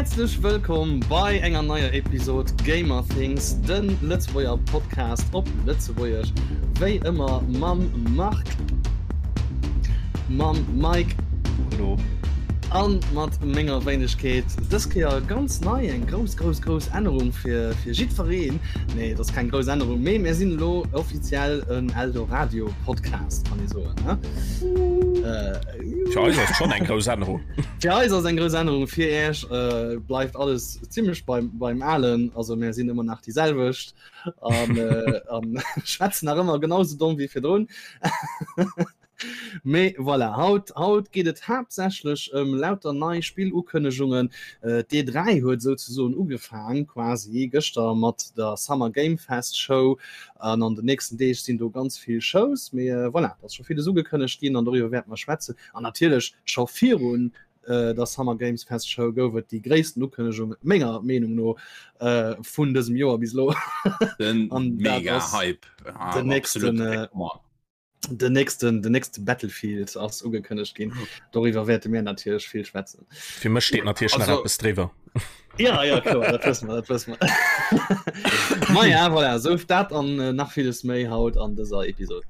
Häerzlech wëllkomm bei enger neier Episod Gamer Things, de Lëtzebuerger Podcast op Lëtzebuergesch, wéi ëmmer mam Marc, mam Mike Hallo. an mat menger Wéinegkeet. Dës Kéier ganz nei, eng grouss, grouss, grouss Ännerung fir, fir jiddwereen. Nee, et ass keng grouss Ännerung, mee mir sinn elo offiziell en Eldoradio Podcast, kann ee soen, ne? Fir eis ass schon eng grouss Ännerung. Fir eis ass eng grouss Ännerung, fir Iech äh, bleift alles zimmlech beim, beim Alen. Also mir sinn ëmmer nach déi selwecht an, äh, an schwätzen nach ëmmer genauso domm wéi virdrun. Mee voilà, haut, haut geet et haaptsächlech ëm lauter nei Spillukënnegungen. Äh, D'E3 huet souzesoen ugefaang quasi gëschter mat der Summer Game Fest Show an an den nächsten Deeg sinn do ganz vill Shows. Mee äh, voilà, et ass scho villes ugekënnegt ginn an doriwwer wäerte mer schwätzen. An natierlech scho virun der Summer Games Fest Show gouf et déi gréissten Ukënnegung menger Meenung no vun dësem Joer bis elo. Den mega Hype. Den nächsten, den nächsten, den nächste Battlefield ass ugekënnegt ginn. Doriwwer wäerte mir natierlech vill schwätzen. Fir mech steet natierlech nach eppes driwwer. Ja, ja, kloer, dat wësse mer, dat wësse mer. Ma ja, voilà, sou dat an äh, nach villes méi haut an dëser Episod.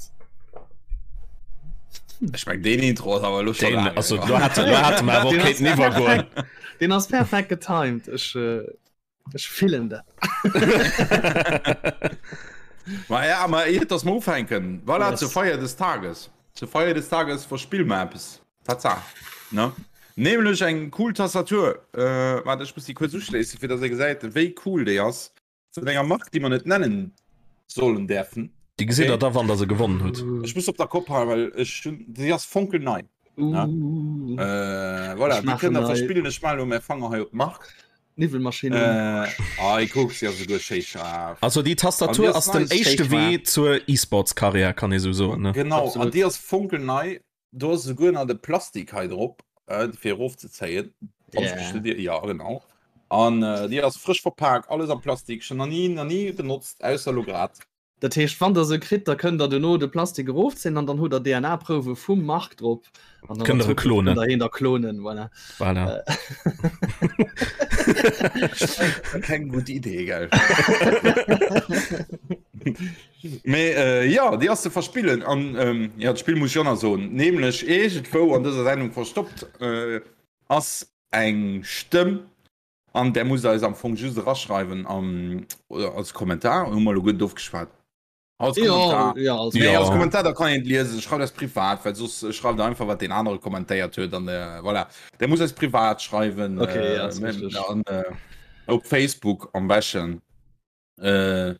Ech meng deen Intro ass awer lo schon Den, also, do hat, do hat mer awer Den ass kéinten iwwergoen. perfekt, den ass perfekt getimed. Ech, äh, ech fillen dat. Ma ja, ma iert dass mer ufänken, voilà, Yes. zur Feier des Tages. Zur Feier des Tages verspille mer eppes. Tatsaach, ne? Nämlech eng cool Tastatur. Äh, warte, ech muss déi kuerz uschléissen, fir dass ee gesäit, wéi cool déi ass. Vun enger Mark, déi mer net nennen sollen däerfen. Déi gesitt der da, wann der se gewonnen hutt. Ech muss op der Kopp halen, well ech hunn, déi ass fonkelnei. Uh. Äh, voilà, Ech déi maachen kënnt der hei- verspillen. Ech maachen elo mäi Fanger hei op d'Mark. Niwwelmaschinn un. Äh, ei, kuck, si ass esouguer schéi schaarf. Also déi An déi Tastatur ass ass den nice. éischte Schéi Wee zur E-Sports-Karriär, kann ee sou soen, ne? Genau, an Absolut. déi ass fonkelnei. Do ass esouguer nach de Plastik hei drop, fir erofzezéien. Yeah. Ja, genau. An äh, déi ass frësch verpak, alles am Plastik, schon nach nie, nach nie benotzt, ausser lo grad. Dat heescht, wann der se kritt, da kënnt der duerno de Plastik erofzéien an dann hutt der DNA-Prouwe vum Marc drop. An dann Kënnt der e klonen. Kënnt der hien da klonen, voilà. Voilà. Keng gutt Idee, gell? Mee äh, ja, déi ass ze verspillen an ähm, ja, d'Spill muss ech och nach soen, nämlech iergendwou an dëser Sendung verstoppt äh, ass eng Stëmm an där musst der eis am Fong just eraschreiwen am, oder als Kommentar, hu mer elo guer net ofgeschwat. Als Kommentar. Ja, ja, als Nee, Ja. als Kommentar, da kann een et liesen. Schreift eis privat, well soss schreift der einfach, wat deen anere kommentéiert huet an äh, voilà. Der muss eis privat schreiwen. Okay, äh, ja, ass richtig. an, äh, op Facebook am beschten. Äh,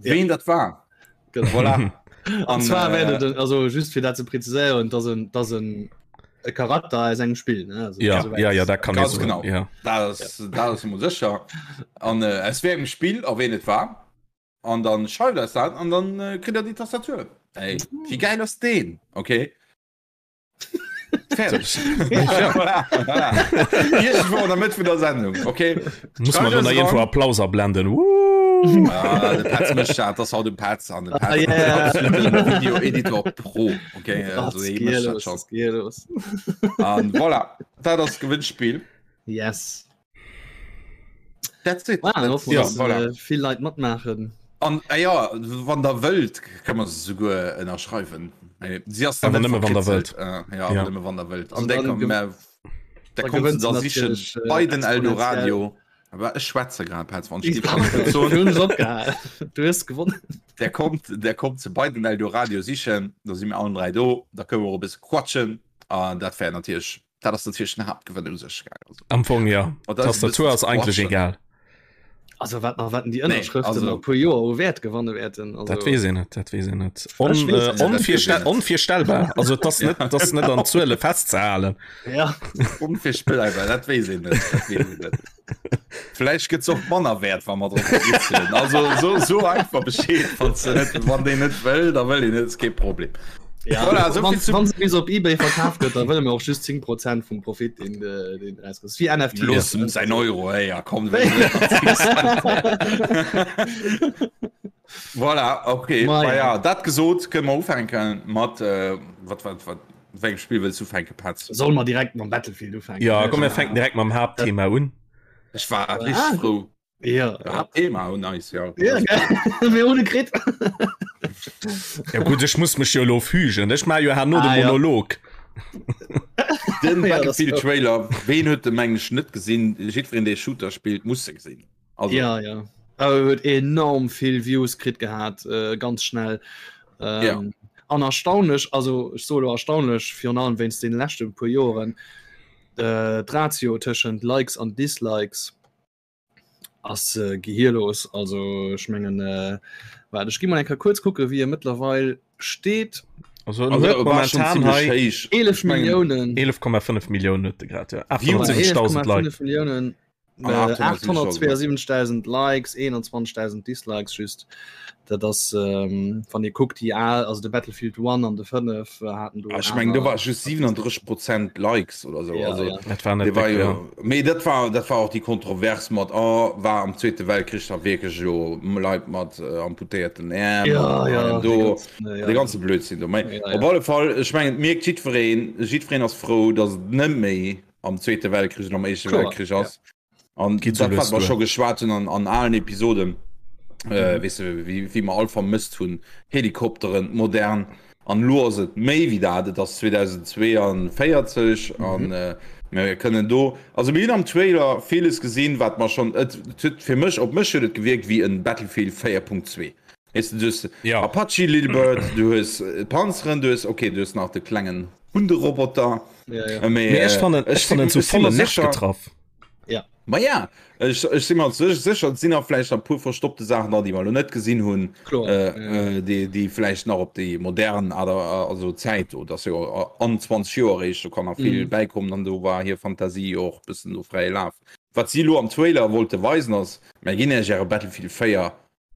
Ween dat war. Genau. Voilà. An zwar äh, wäert et, also just fir dat ze präziséieren, dass en, dass en e Charakter aus engem Spill, ne? Also, Ja, soweit- ja, ja, dat kann ee Ganz soen. genau. Ja. Dat ass, dat ass emol sécher. An äh, aus wéi engem Spill a ween et war. An dann schreift eis dat an dann äh, kritt der déi Tastatur. Ey, wéi geil ass deen? Okay. Fertig. Ja, voilà, voilà. Irgendwo an der Mëtt vun der Sendung. Okay. Muss man Schreift nach eis irgendwo ran. Applaus ablenden. Woo! Ah, de Petz mécht dat, das haut de Petz an de Petz Ah, yeah. absoluten Video-Editor Pro. Okay, Was also hie geht mécht dat los? schon. Was geht los? An voilà, dat ass Gewinnspiel. Yes. That's it. Wow, dann hoffen wir, Ja, dass, voilà. äh, vill Leit matmaachen. An äh, ja, wann der wëllt, kann man se souguer ënnerschreiwen. Äh, Si ass dann Awer net nëmme wann der verkritzelt. Äh, ja, Ja. awer nëmme wann der wëllt. Also An der dann kommt ge- mehr, der da kommt gewënnt da se sichen natierlech, äh, bei den exponentiell. Eldoradio. Aber ech schwätze grad, Petz, wann ich Ich die Kon- hunn es opgehalen. Du hues gewonnen. Der kommt, der kommt ze bei den Eldoradio sichen, da si mir allen 3 do, da kënne mer och e bësse quatschen an dat wär natierlech, dat ass natierlech den Haaptgewënn u sech, gell, also. Am Fong ja. Oh, dat ass e Tastatur bëssen ass eigentlech quatschen. egal. Also wat nach wat die Nee, Ënnerschrëften also- a puer Joer u Wäert gewanne wäerten. Also, Dat weess een net, dat weess een net. On, Ech weess äh, et net. onvirstell onvirstellbar. Also et ass net, dat ass net an Zuele festzehalen. Ja. Onvirstellbar, dat weess een net, dat weess een net. Vläicht gëtt se och manner wäert, wa mer drop kritzelen. Also so, so einfach Bescheed, wann se net, wann deen net wëll, da wëll een net, ist kee Problem. Ja, Voilà, so wann, viel zu- wann se bis op eBay verkaf gëtt, da wëlle mir och just 10 Prozent vum Profit, deen de, deen rauskritt. Wie NFT. Looss em säin Euro, ey, ja komm. Voilà, okay. Ma Ma ja. ja, dat gesot, kënne mer ufänken mat, äh, wat, wat, wat. Wéi engem Spill wëlls du ufänken, Petz? Solle mer direkt mam Battlefield ufänken? Ja, komm, mir fänken direkt mam Haaptthema un. Ech war richteg frou. Ja. Haaptthema un eis, ja. Ja, mir hunn e kritt. Ja gutt, ech muss mech jo elo fügen. Ech maache jo herno de Ah, ja. Monolog. Den Ja, das- Battlefield-Trailer, ween huet de mengen ech net gesinn? Jiddwereen, dee Shooter spillt, muss se gesinn. Also, Ja, ja. Awer huet enorm vill Views kritt gehat, äh, ganz schnell. Ähm, Ja. An erstaunlech, also ech soe lo erstaunlech, virun allem wéinst den leschte puer Joren, äh, d'Ratio tëschent Likes an Dislikes ass äh, gehirlos. Also ech mengen, äh, waart, ech gi mol eng Kéier kuerz kucke wéi e mëttlerweil steet. Also, also huet war schon momentan ziemlech hei héich. 11 Ich mengen, Milliounen. 11,5 Milliounen huet de grad, ja. Views. 870.000 Leit. 11,5 Milliounen. An Äh, 872.000 Likes, 21.000 Dislikes just. Dat ass ähm, wann Dir kuckt déi al, also de Battlefield 1 an de 5 äh, haten do. Ah, ech mengen do war just 37 Prozent Likes oder sou. Ja, also, ja. Dat war net dee war déck, jo, ja. mee dat war dat war och déi Kontrovers mat oh, war am Zweete Weltkrich da wierklech elo Leit mat äh, amputéierten Äerm Ja, an ja, allem dee do ganzen, äh, ja. de ganze Blödsinn do. Mee Ja, ja. op alle Fall, ech mengen et mierkt jiddwereen, jiddwereen ass frou, datt et net méi am Zweete Weltkrich oder am Éischte Kloer, Weltkrich ass. An Geet so dat, wat lues mer duer. scho geschwat hunn an, an alen Episoden, äh, Mhm. weess de, wéi, wéi mer all vermësst hunn, Helikopteren, modern. An elo ass et méi wéi dat, et ass 2042 an Mhm. äh, mir kënnen do, also mir hunn am Trailer villes gesinn, wat mer schonn, et et huet fir mech, op mech huet et gewierkt wéi en Battlefield 4.2. Weess de, du hues Ja. Apache Little Bird, du hues Panzeren, du hues, okay, du hues nach de klengen Hunderoboter. Ja, ja. Mee, Mee ech fannen, ech ech fannen si so volle mer Nerv sécher, getraff. Ja. Ma ja, ech, ech si mer sécher, et sinn nach vläicht nach e puer verstoppte Saachen dran, déi mer elo net gesinn hunn, Kloer. äh, Ja. äh, déi, déi vläicht nach op déi modern Aart a, also Zäit do, dat ass jo an 20 Joer eréischt, do kann nach vill Mhm. bäikommen an do war hir Fantasie jo och e bëssen do fräie Laf. Wat si elo am Trailer wollte weisen ass, Mär ginn Iech Äre Battlefield 4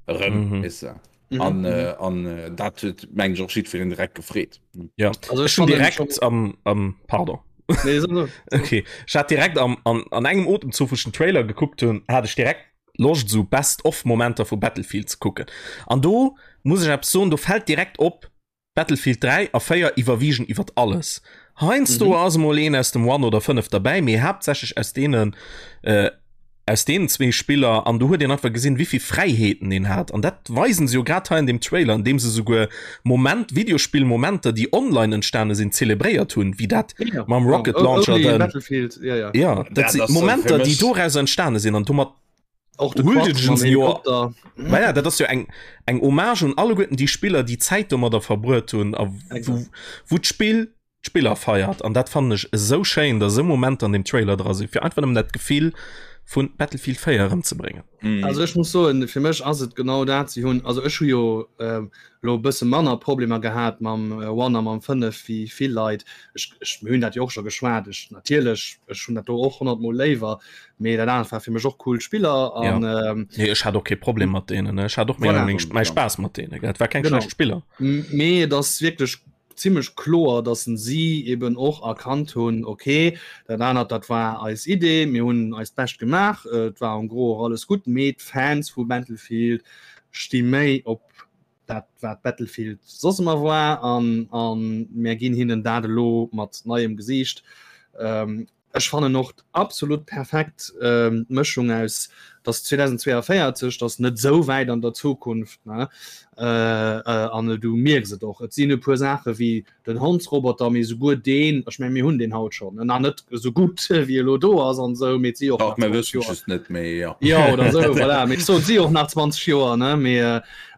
erëm, Mhm. weess de. Mhm. An, Mhm. äh, an äh, dat huet, meng ech, och jiddwereen direkt gefreet. Ja. Also Ech ech hun fannen direkt schon am, am pardon. Nee, so, so. Okay. Ech hat direkt am, an, an engem Otemzuch, wou ech den Trailer gekuckt hunn, hat ech direkt Loscht esou Best-of-Momenter vu Battlefield ze kucken. An do muss ech eppes soen, do fält direkt op, Battlefield 3 a 4 iwwerwiegen iwwert alles. Heiansdo Mhm. ass emol een aus dem One oder 5 derbäi, mee haaptsächlech aus deenen äh, aus deenen zwee Spiller an do huet een einfach gesinn, wéivill Fräiheeten een hat. An dat weisen se jo grad hei an deem Trailer, an deem se souguer Moment Videospillmomenter, déi online entstane sinn, zelebréiert hunn, wéi dat Ja, mam Rocket oh, Launcher only den Battlefield, ja, ja. ja, dat Dat si ass, äh, Momenter, fir déi mech- doraus entstane sinn an domat Och de Huldegen Quad mam se jo- Helikopter. Ma ja, dat ass jo eng eng Hommage un alleguerten déi Spiller, déi Zäit domadder verbruet hunn a wou wou d'Spill d'Spiller feiert. An dat fannen ech esou schéin, datt esou Momenter an deem Trailer dra sinn, fir einfach nëmmen dat Gefill vun Battlefield 4 erëmzebréngen. Mm. Also ech muss soen, fir mech ass et genau dat. Si hunn, also ech hu jo ähm, lo e bësse manner Problemer gehat mam äh, One a mam 5 wéi vill Leit. Ech, ech, mir hunn dat jo och scho geschwat. Ech natierlech, ech hunn dat do och 100 Mol léiwer, mee dat anert war fir mech och cool Spiller an ja. ähm, Nee, ech hat och kee Problem mat deenen. Ech hat och méi Voilà. meng, mäi Spaass mat deenen. Et war keng Genau. schlecht Spiller. Mee et ass wierklech zimmlech kloer, dass si eben och erkannt hunn, okay, dat anert dat war eis Idee, mir hunn eist Bescht gemaach, et war en gros och alles gutt, mee d'Fans vu Battlefield sti méi op dat wat Battlefield soss ëmmer war an an mär ginn hinnen dat elo mat neiem Gesiicht. Ähm, Ech fannen och absolut perfekt d'Mëschung aus, dass 2042, dass net esou wäit an der Zukunft, ne, an du mierks et och, et sinn e puer Saache wéi den Hondsroboter, mee souguer deen, ech meng mir hunn deen haut schonn, nach net esou gutt wéi e lo do ass an esou, mee et si och Dach, nach mir 20 wëssen Joer. just net méi, jo. Jo, oder esou, voilà, mee ech soen, et si och nach 20 Joer, ne, mee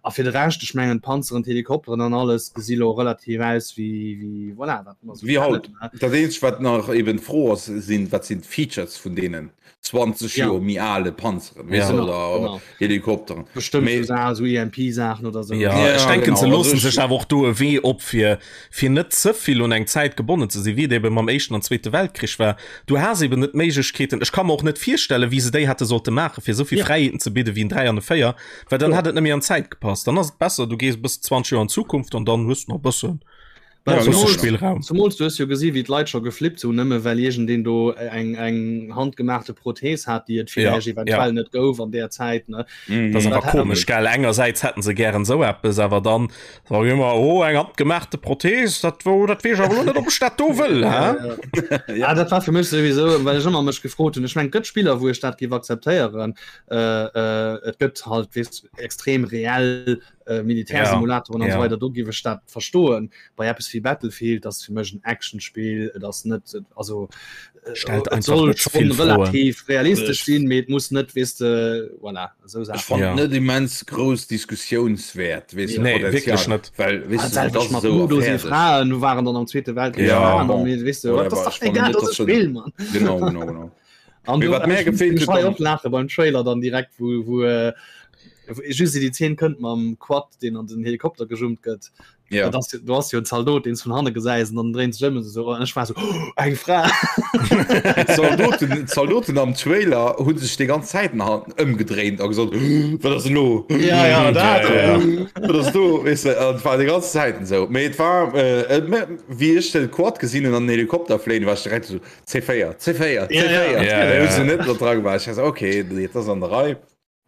a fir de Rescht, ech mengen d'Panzeren, d'Helikopteren an alles gesi lo relativ aus wéi, wéi, voilà, wat mer esou Wéi haut. kennen, ne. Dat eenzegt wat nach eben d'Fro ass, sinn, wat sinn d'Features vun deenen 20 Ja. Joer méi ale Panzeren, weess de, Ja. Genau, oder genau. Helikopteren. Bestëmmt Mee- sou Sa- sou EMP-Saachen oder sou. Ja, Ja, ech denken, genau, se also loossen ech- sech awer och do e Wee op, fir, fir net ze vill un eng Zäit gebonnen ze sinn, wéi et eben mam Éischten an Zweete Weltkrich war. Du has eben net d'Méiglechkeeten, ech ka mer och net virstellen, wéi se déi hätte sollte maachen, fir esou vill Ja. Fräiheeten ze bidde wéi en 3 an e 4, well dann Kloer. hätt et net méi an d'Zäit gepasst. Dann ass et besser, du gees e bëssen 20 Joer an d'Zukunft an dann hues du nach e bëssen. Ja, Spillraum. Zumols du hues jo gesi wéi d'Leit scho geflippt hunn, nëmme well iergendeen do eng eng handgemaachte Prothees hat, déi et villäicht ja, eventuell ja. net gouf an där Zäit ne. Mm. Dat ass awer komesch gell engersäits hätten se gären sou eppes, awer dann sag ich immer oh eng handgemaachte Prothees, dat wou dat weess ech awer lo net ob ech dat do wëll hä? Ja, ja. ja dat war fir mech souwisou, well ech ëmmer mech gefrot hunn. Ech meng gëtt Spiller wou ech dat géif akzeptéieren. Äh, äh, et gëtt halt weess extrem reell äh, Militärsimulatoren ja, an ja. so weiter do giwe dat verstoen bei Apps wie Battlefield das fir mech en Actionspiel et ass net also äh, stellt äh, soll schon relativ realistisch sinn mit muss net wisst de voilà, so ich ja. net immens groß Diskussionswert weißt du, nee, wirklich net well weißt du, das so Frauen du waren dann am zweite Weltkrieg ja, bon. weißt du, das egal, das Spiel, Mann. genau, genau, genau. An du, wat mir gefehlt huet och laache beim Trailer dann direkt wou wou äh, just déi Zeen kënnt mam Quad deen an den Helikopter gejummt gëtt. Ja. Das, du hast jo en Zaldot den vun hanne gesäis an dann dréint sech ëm so an ech war so oh, eng Fra. Zaldoten Zaldoten am Trailer hunn sech déi ganz Zäit ëmgedréint a gesot wat ass elo? Ja, ja, dat, ja. Wat ass do? Weess de, an et war déi ganz Zäiten esou. Mee et war äh, wéi ech de Quad gesinn hunn an den Helikopter fléien, war ech direkt esou C4 C4 C4 ja, ja. net dra war ich okay das an der Rei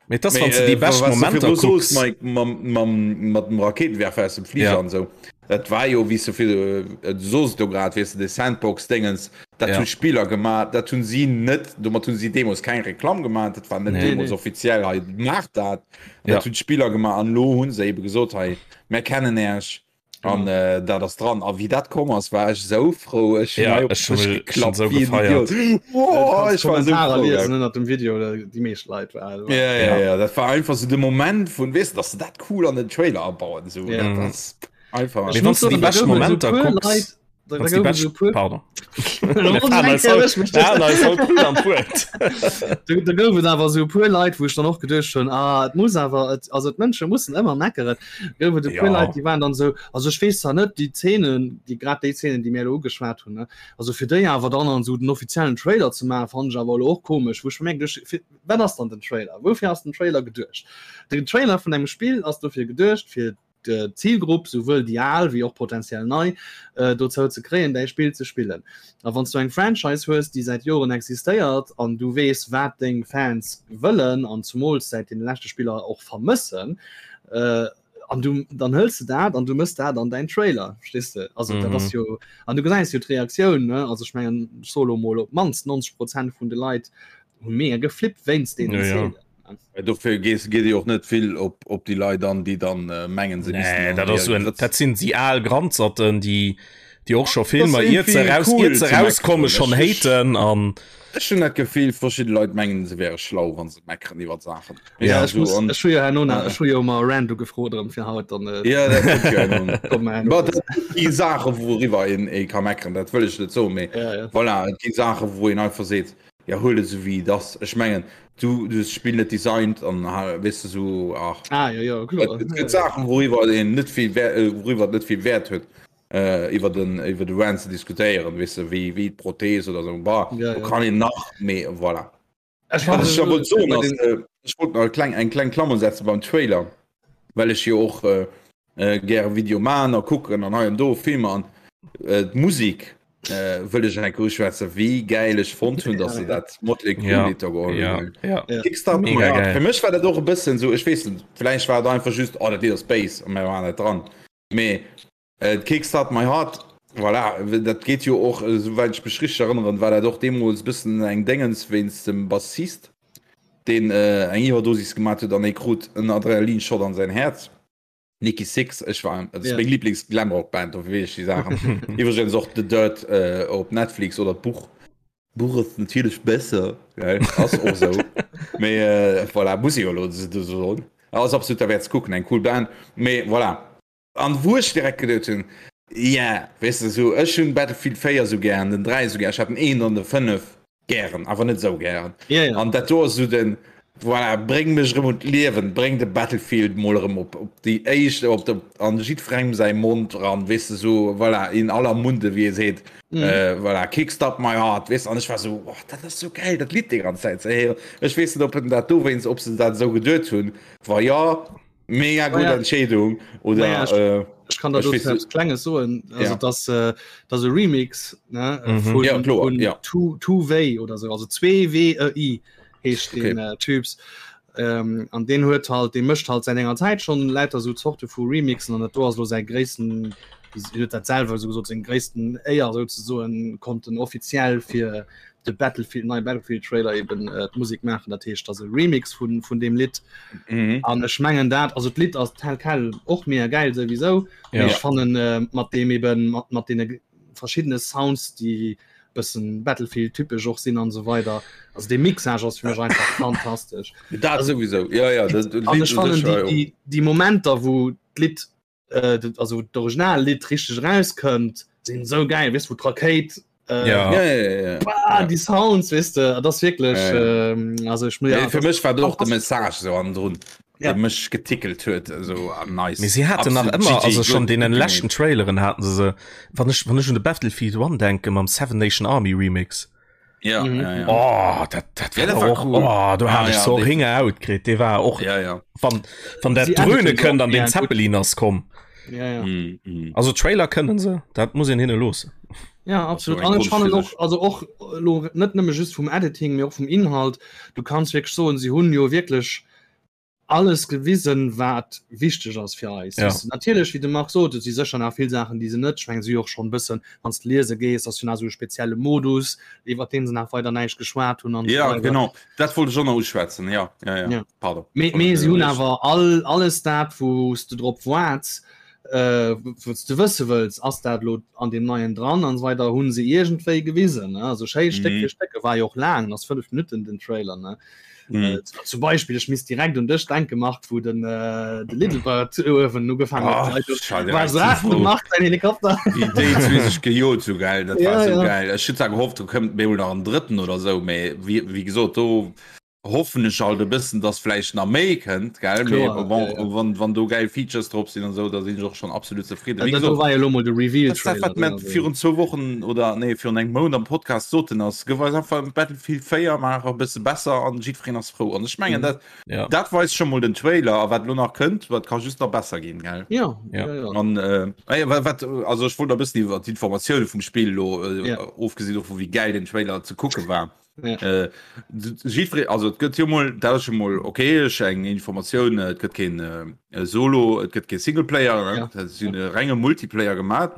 Mee das wann du déi bescht Momenter kucks mat dem Raketenwerfer aus dem Flieger ja. an so dat war jo wie so viel äh, so du grad weißt du de Sandbox Dingens dat ja. hun Spieler gemacht dat hun sie net domat hun sie Demos kein Reklam gemacht dat war net nee, Demos nee. offiziell hei macht dat ja. dat hun Spieler gemacht an lo hun se eben gesot hei mer kennen erch An äh, dat ass dran. A wéi dat komm ass, war ech sou frou. Ech hunn hei op den Dësch geklappt wéi en Idiot. Wow, ech war sou frou. Liesen ënnert dem Video, déi meescht Leit war. Ja, ja, ja, dat war einfach sou de Moment vun, weess de, dass se dat cool an den Trailer abauen. Sou, dat ass einfach. Mee wann s de déi bescht Momenter kucks. Da gouf et awer sou e puer Leit, wou ech dann och geduecht hunn, ah et muss awer, et, also d'Mënsche mussen ëmmer meckeren, gouf et e puer Leit, déi waren dann esou, also ech weess zwar net déi Zeenen, déi grad déi Zeenen, déi mir elo ugeschwat hunn, ne, also fir déi awer dann an esou den offiziellen Trailer ze maachen, fannen ech awer elo och komesch, wou ech mir geduecht, fir wat ass dann den Trailer, woufir ass den Trailer geduecht? Den Trailer vun engem Spill ass dofir geduecht, fir d'Zilgrupp, souwuel déi al wéi och potentiell nei, dozou ze kréien, däi Spill ze spillen. A wann s du eng Franchise hues, déi säit Joren existéiert an du weess, wat deng Fans wëllen an zumools säit deene leschte Spiller och vermëssen, an du dann hëls de dat an du mëss dat an däin Trailer, verstees de? Also dat ass jo, an du gesäis jo d'Reaktioun, ne? Also ech mengen, ech soe lo mol, op d'mannst 90 Prozent vun de Leit hu mega geflippt wéinst deenen Zeenen. Dofir geet Dir och net vill op, op déi Leit an, déi dann äh, mengen se nee, dat, ass en, dat sinn déi al Granzerten, déi déi och scho Filmer iert se raus, cool iert se rauskomme schon haten an Ech hunn dat Gefill verschidde Leit mengen se wäre schlau wann se meckeren iwwer Saachen. Ja, ech muss, ech hu jo herno nach, ech hu jo mar Rando gefrot erëm fir haut dann. Äh, ja, dat kommt jo herno. Kommt mer herno. Dat gi Saache wouriwwer een ee ka meckeren, dat wëll ech net soen, mee ja, ja. voilà, et gi Saache wou een einfach seet, Ja huel et esou wéi et ass. Ech mengen du du hues d'Spill net designt an weess de sou ach. Ah jo jo kloer. Et gëtt Saachen wouriwwer een net vill Wäert wouriwwer et net vill Wäert huet iwwer den iwwer de Rant ze diskutéieren weess de wéi wéi d'Prothese oder sou bah do kann een nach mee voilà. Ech Wat ech da wollt soen ass ech wollt nach e kleng eng kleng Klammer setze beim Trailer well ech jo och gäre Video man a kucken an hei an do Filmer an d'Musik wëll ech eng Kéier uschwätzen, wéi gäil ech fonnt hunn, dass se dat Motley Crue Lidd do geholl hunn. Kickstart My Heart. Fir mech war dat och e bëssen esou, ech weess net, vläicht war et einfach just, oh dat Lidd ass béis a mir waren net dran, mee Kickstart My Heart, voilà, dat geet jo och, esouwäit ech mech richteg erënneren, war dat och deemools e bëssen eng Déngens wéinst dem Bassist, deen eng Iwwerdosis gemat huet an hie krut en Adrenalinshot an säin Häerz. Nikki Sixx, ech war, dat ass meng Lieblings-Glamrock-Band, dofir weess ech déi Saachen. Iwwregens och The Dirt op Netflix oder d'Buch. D'Buch ass natierlech besser, gell, ass och esou. Mee voilà, muss ee jo elo esou soen. Ass absolut derwäert ze kucken, eng cool Band. Mee voilà. An wou ech direkt geduet hunn, yeah, weess de, esou, ech hunn Battlefield 4 esou gären, den 3 esou gär, ech hat den 1 an de 5 gären, awer net esou gären. Ja, ja. An dat do ass esou den, voilà, bréng mech erëm un d'Liewen, bréng de Battlefield mol erëm op, op déi éischt, op de, an jiddwerengem säi Mond eran, weess de, esou, voilà, in aller Munde, wéi ee seet, Mhm. äh, voilà, Kickstart my heart, weess de, an ech war esou, oh, dat ass esou gäil, dat Lidd déi ganz Zäit ze héieren. Ech weess net, ob en dat dowéinst, ob se dat esou geduet hunn, wa jo, Mega gutt ja. Entscheedung oder Naja, ech, äh... Ech kann da eppes Klenges soen also ja. dass äh, dass e Remix ne, äh, mhm. vun, ja, vun ja. two, two way oder so also 2 W E I heescht okay. den äh, Typs ähm, an den huet halt de mëscht halt seit enger Zeit schon lauter so Zorte vu Remixen an dat do ass lo säi gréissten huet dat selwer so gesot seng gréissten Éier souzesoen konnten offiziell fir de Battlefield neie Battlefield Trailer eben äh, d'Musik maachen dat heescht ass e Remix vun vun dem Lidd mhm. an ech mengen dat also d'Lidd ass tel quel och mega geil souwisou ja. ech fannen äh, mat dem eben mat, mat den verschiedene Sounds die bëssen Battlefield typesch och sinn an so weider also de Mixage ass fir mech einfach fantastesch dat sowieso ja ja dat, dat an ech fannen déi, déi, déi Momenter wou d'Lidd äh, also d'Originallidd richteg rauskënnt sinn sou geil weess wou d'Rakéit äh, ja. Ja, ja, ja, ja. Bah, die Sounds weess de dat ass wierklech Ja, ja. ähm, also ech muss Ja, fir mech war och de Message so an drun Ja. ja. mech getickelt huet so ah, nice. Mee si haten nach Absolut ëmmer GG, also schon gut deenen gemacht. leschten Traileren haten se se wann ech wann ech un de Battlefield 1 denke mam Seven Nation Army Remix Ja, Mhm. ja, ja. oh dat dat Ja, war dat war och cool. oh, do hat Ah, ech ja, so definitiv. Ringer out kritt dee war och Ja, ja. wann wann dat Sie Dröhne editen se kënnt och an den gär gut. Zeppelin ass komm ja, ja. Mm, mm. also Trailer kënnen se dat muss een hinne loossen Ja, absolut. eng An ech Konscht fannen fir och sech. also och lo net nëmme just vum Editing, mee och vum Inhalt. Du kanns wierklech soen, si hunn jo wierklech alles gewisen, wat wichteg ass fir eis. Ja. Weess de, natierlech, wéi de Marc sot, et si sécher nach vill Saachen, déi se net, ech mengen, si hu jo och schonn e bëssen, wann s de liese gees, ass jo nach esou e spezielle Modus, iwwer deen se nach weider näischt geschwat hunn an esou Ja, weider. genau. Dat wollt ech och nach uschwätzen. Ja, ja, ja. Ja. Pardon. Mee, mee si hunn awer all, alles dat, wou s de drop waarts, äh, wou s de wësse wëlls, ass dat elo an deem neien dran an esou weider, hu se iergendwéi gewisen, ne? Also schéi Stéck Mhm. fir Stéck, e war jo och laang, ass 5 Minutten den Trailer, ne? Mhm. Äh, zum Beispill, ech misst direkt un dech denke Marc, wou den, äh, de Little Bird uewen ugefaangen Ah, huet, schau war direkt so, zu ah, froh. de Marc säin Helikopter. Wéi déi zwee sech gejot hu, gell, dat war Ja, sou ja. geil. Ech hunn zwar gehofft, do kënnt bemol nach en drëtten oder sou, mee wéi, wéi gesot, do hoffen ech alt e bëssen, dass vläicht nach méi kënnt, gell, mee Kloer, bon, ja, ja. wann, wann do gäil Features drop sinn an sou, da sinn ech och schonn absolut zefridden. Wéi Dat do gesot, war jo elo mol de dat ass dat, Reveal-Trailer, wat ne, mer also. virun zwou Wochen oder nee, virun engem Mount am Podcast soten, ass, gëff eis einfach Battlefield 4, maach e bësse besser an jiddwereen ass frou. An ech mengen, Mhm. dat, Ja. dat weist scho mol den Trailer a wat elo nach kënnt, wat ka just nach besser ginn, gell? Ja, Ja. ja, ja. An äh, ah ja, wat, wat, also ech wollt e bëssen iwwer d'Informatioune vum Spill elo, äh, Ja. ofgesinn dovun, wéi gäil den Trailer ze kucke war. Ja. Äh, jiddweree, also et gëtt jo mol, dat ass jo mol okay, ech eng Informatioun, et gëtt keen äh, Solo, et gëtt kee Singleplayer, ne? Ja. Dat sinn e renge Multiplayer gemaat.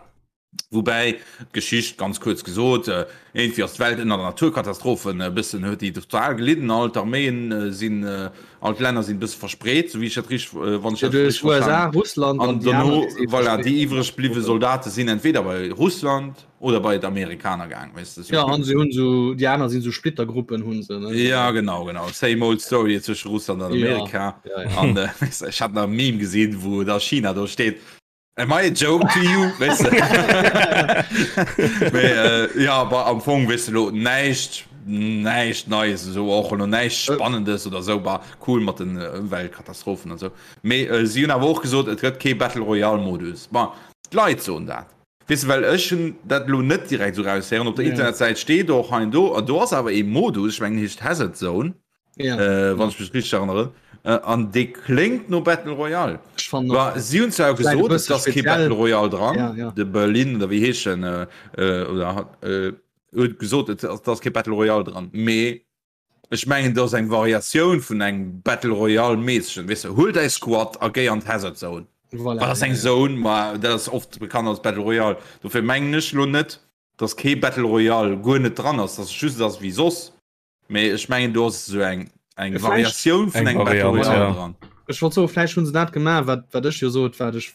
Woubäi d'Geschicht, ganz kuerz gesot, äh, iergendwéi ass d'Welt ënner Naturkatastrophen e bëssen, huet déi total gelidden, all d'Arméien äh, sinn, äh, all d'Länner sinn e bësse verspreet, sou wéi ech dat richteg, äh, wann ech Ja, dat du hues richteg USA, verstanen. Russland An an déi aner, dono, déi si voilà, déi verspreet. iwwreg bliwwe Soldate sinn entweder bei Russland, Oder bei d'Amerikaner gaang, weess de. Ja, an se hunn sou, déi aner sinn sou Splittergruppen hunn se, ne? Ja, genau, genau. Same old story zwësche Russland an Amerika. Ja, ja, ja. An äh, weess de, ech hat nach e Meme gesinn, wou da China do steet, Am I a joke to you? Weess de. Mee äh, ja, aber am Fong, weess de, lo näischt, näischt Neies esou, och elo näischt Spannendes oder sou, bah, cool mat den Ëmweltkatastrophen an sou. Mee äh, si hunn awer och gesot, et gëtt kee Battle Royale Modus. Bon, d'Leit soen dat. Weess de, well ech hunn dat elo net direkt esou raushéieren. Op der Ja. Internetsäit steet och hei an do, an do ass awer ee Modus, ech mengen en heescht Hazard Zone, Ja. äh, wann ech mech richteg erënneren, äh, an dee kléngt no Battle Royale. Ech fannen och. Bah, si hunn zwar Vläicht e gesot, et bësse ass kee speziell. Battle Royale dran, Ja, ja. de Berlin oder wéi heescht en, äh, äh, oder äh, huet gesot, et ass, et ass kee Battle Royale dran, mee Ech mengen dat ass eng Variatioun vun engem Battle Royale mässegen, weess de, huel däi Squad a géi an d'Hazard Zone. Voilà, Wat ass ja, eng ja. Zone? Ma dat ass oft bekannt als Battle Royale. Dofir mengen ech lo net, dass kee Battle Royale guer net dran ass, dass et just ass wéi soss, mee ech mengen do ass esou eng eng Vläicht- Variatioun vun Eng engem Battle Variant, Royale ja. dran. Ech wollt soen, vläicht hunn se dat gemaach, wat, wat ech jo sot, wat ech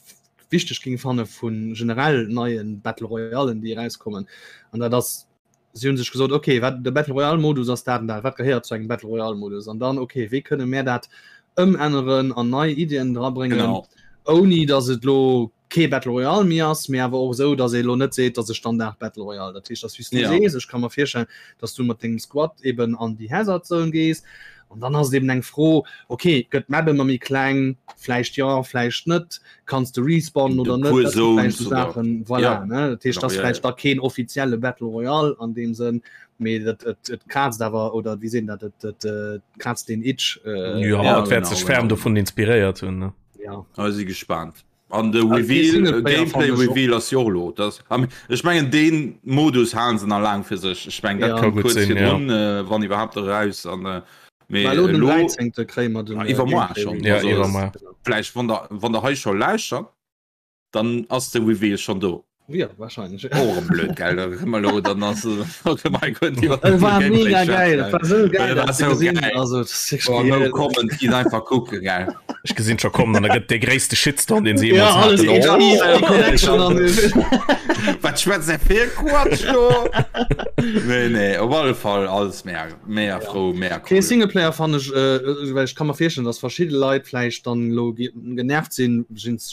wichteg géing fanne vu generell neie Battle Royalen, déi erauskommen. An dat ass si hunn sech gesot, okay, wat de Battle Royale Modus ass dat an dat, wat gehéiert zu engem Battle Royale Modus an dann okay, wéi kënne mär dat ëmänneren an nei Iddien drabréngen, Genau. ouni datt et lo kee Battle Royale méi ass, mee awer och esou, datt ee lo net seet, datt e Standard Battle Royale. Dat heescht, datt wéi s du Ja. sees, ech ka mer virstellen, datt du mat dengem Squad eben an déi Hazard Zone gees an dann ass et eben eng Fro, okay, gëtt d'Map ëmmer méi kleng, vläicht jo, vläicht net, kanns de respawnen oder net, dat sinn vläicht sou Saachen, voilà, ja. ne, dat heescht, Genau, dat ass ja, vläicht ja. da keen offizielle Battle Royale an deem Sënn, mee dat et et kraazt awer, oder wéi seet een dat, et et äh, kraazt den Itch. Äh, ja, ja, et wäert genau, sech ferm genau. dovun inspiréiert hunn, ne? Ja. Also si gespaant. An de Reveal, Gameplay Reveal ass jo och elo. Dat, ech mengen deen Modus halen se nach laang fir sech. Ech mengen dat kënnt kuerz virdrun, wann iwwerhaapt eraus. An mee elo den 13. kréie mer den iwwermoar schonn. Ja, iwwermoar. Vläicht wann der wann der hei scho lauschtert, dann ass de Reveal schonn do. Ja, wahrscheinlich. Och erëm blöd, gell? Da kënne mer elo, dann ass okay, mein Gott, iwwer Et war mega geil, et war sou geil, dat ze gesinn. Also, dat ass wierklech Oh, no comment, gitt einfach kucken, gell? Ech gesinn scho kommen, an da gëtt dee gréisste Shitstorm, deen se Ja, jeemools alles haten. HD, Oh! Connection an Wat schwätzt der fir Quatsch do? Nee, nee, op alle Fall alles mega, mega frou, mega cool. Okay, Singleplayer fannen ech, äh, well ech ka mer virstellen, dass verschidde Leit vläicht dann elo genervt sinn,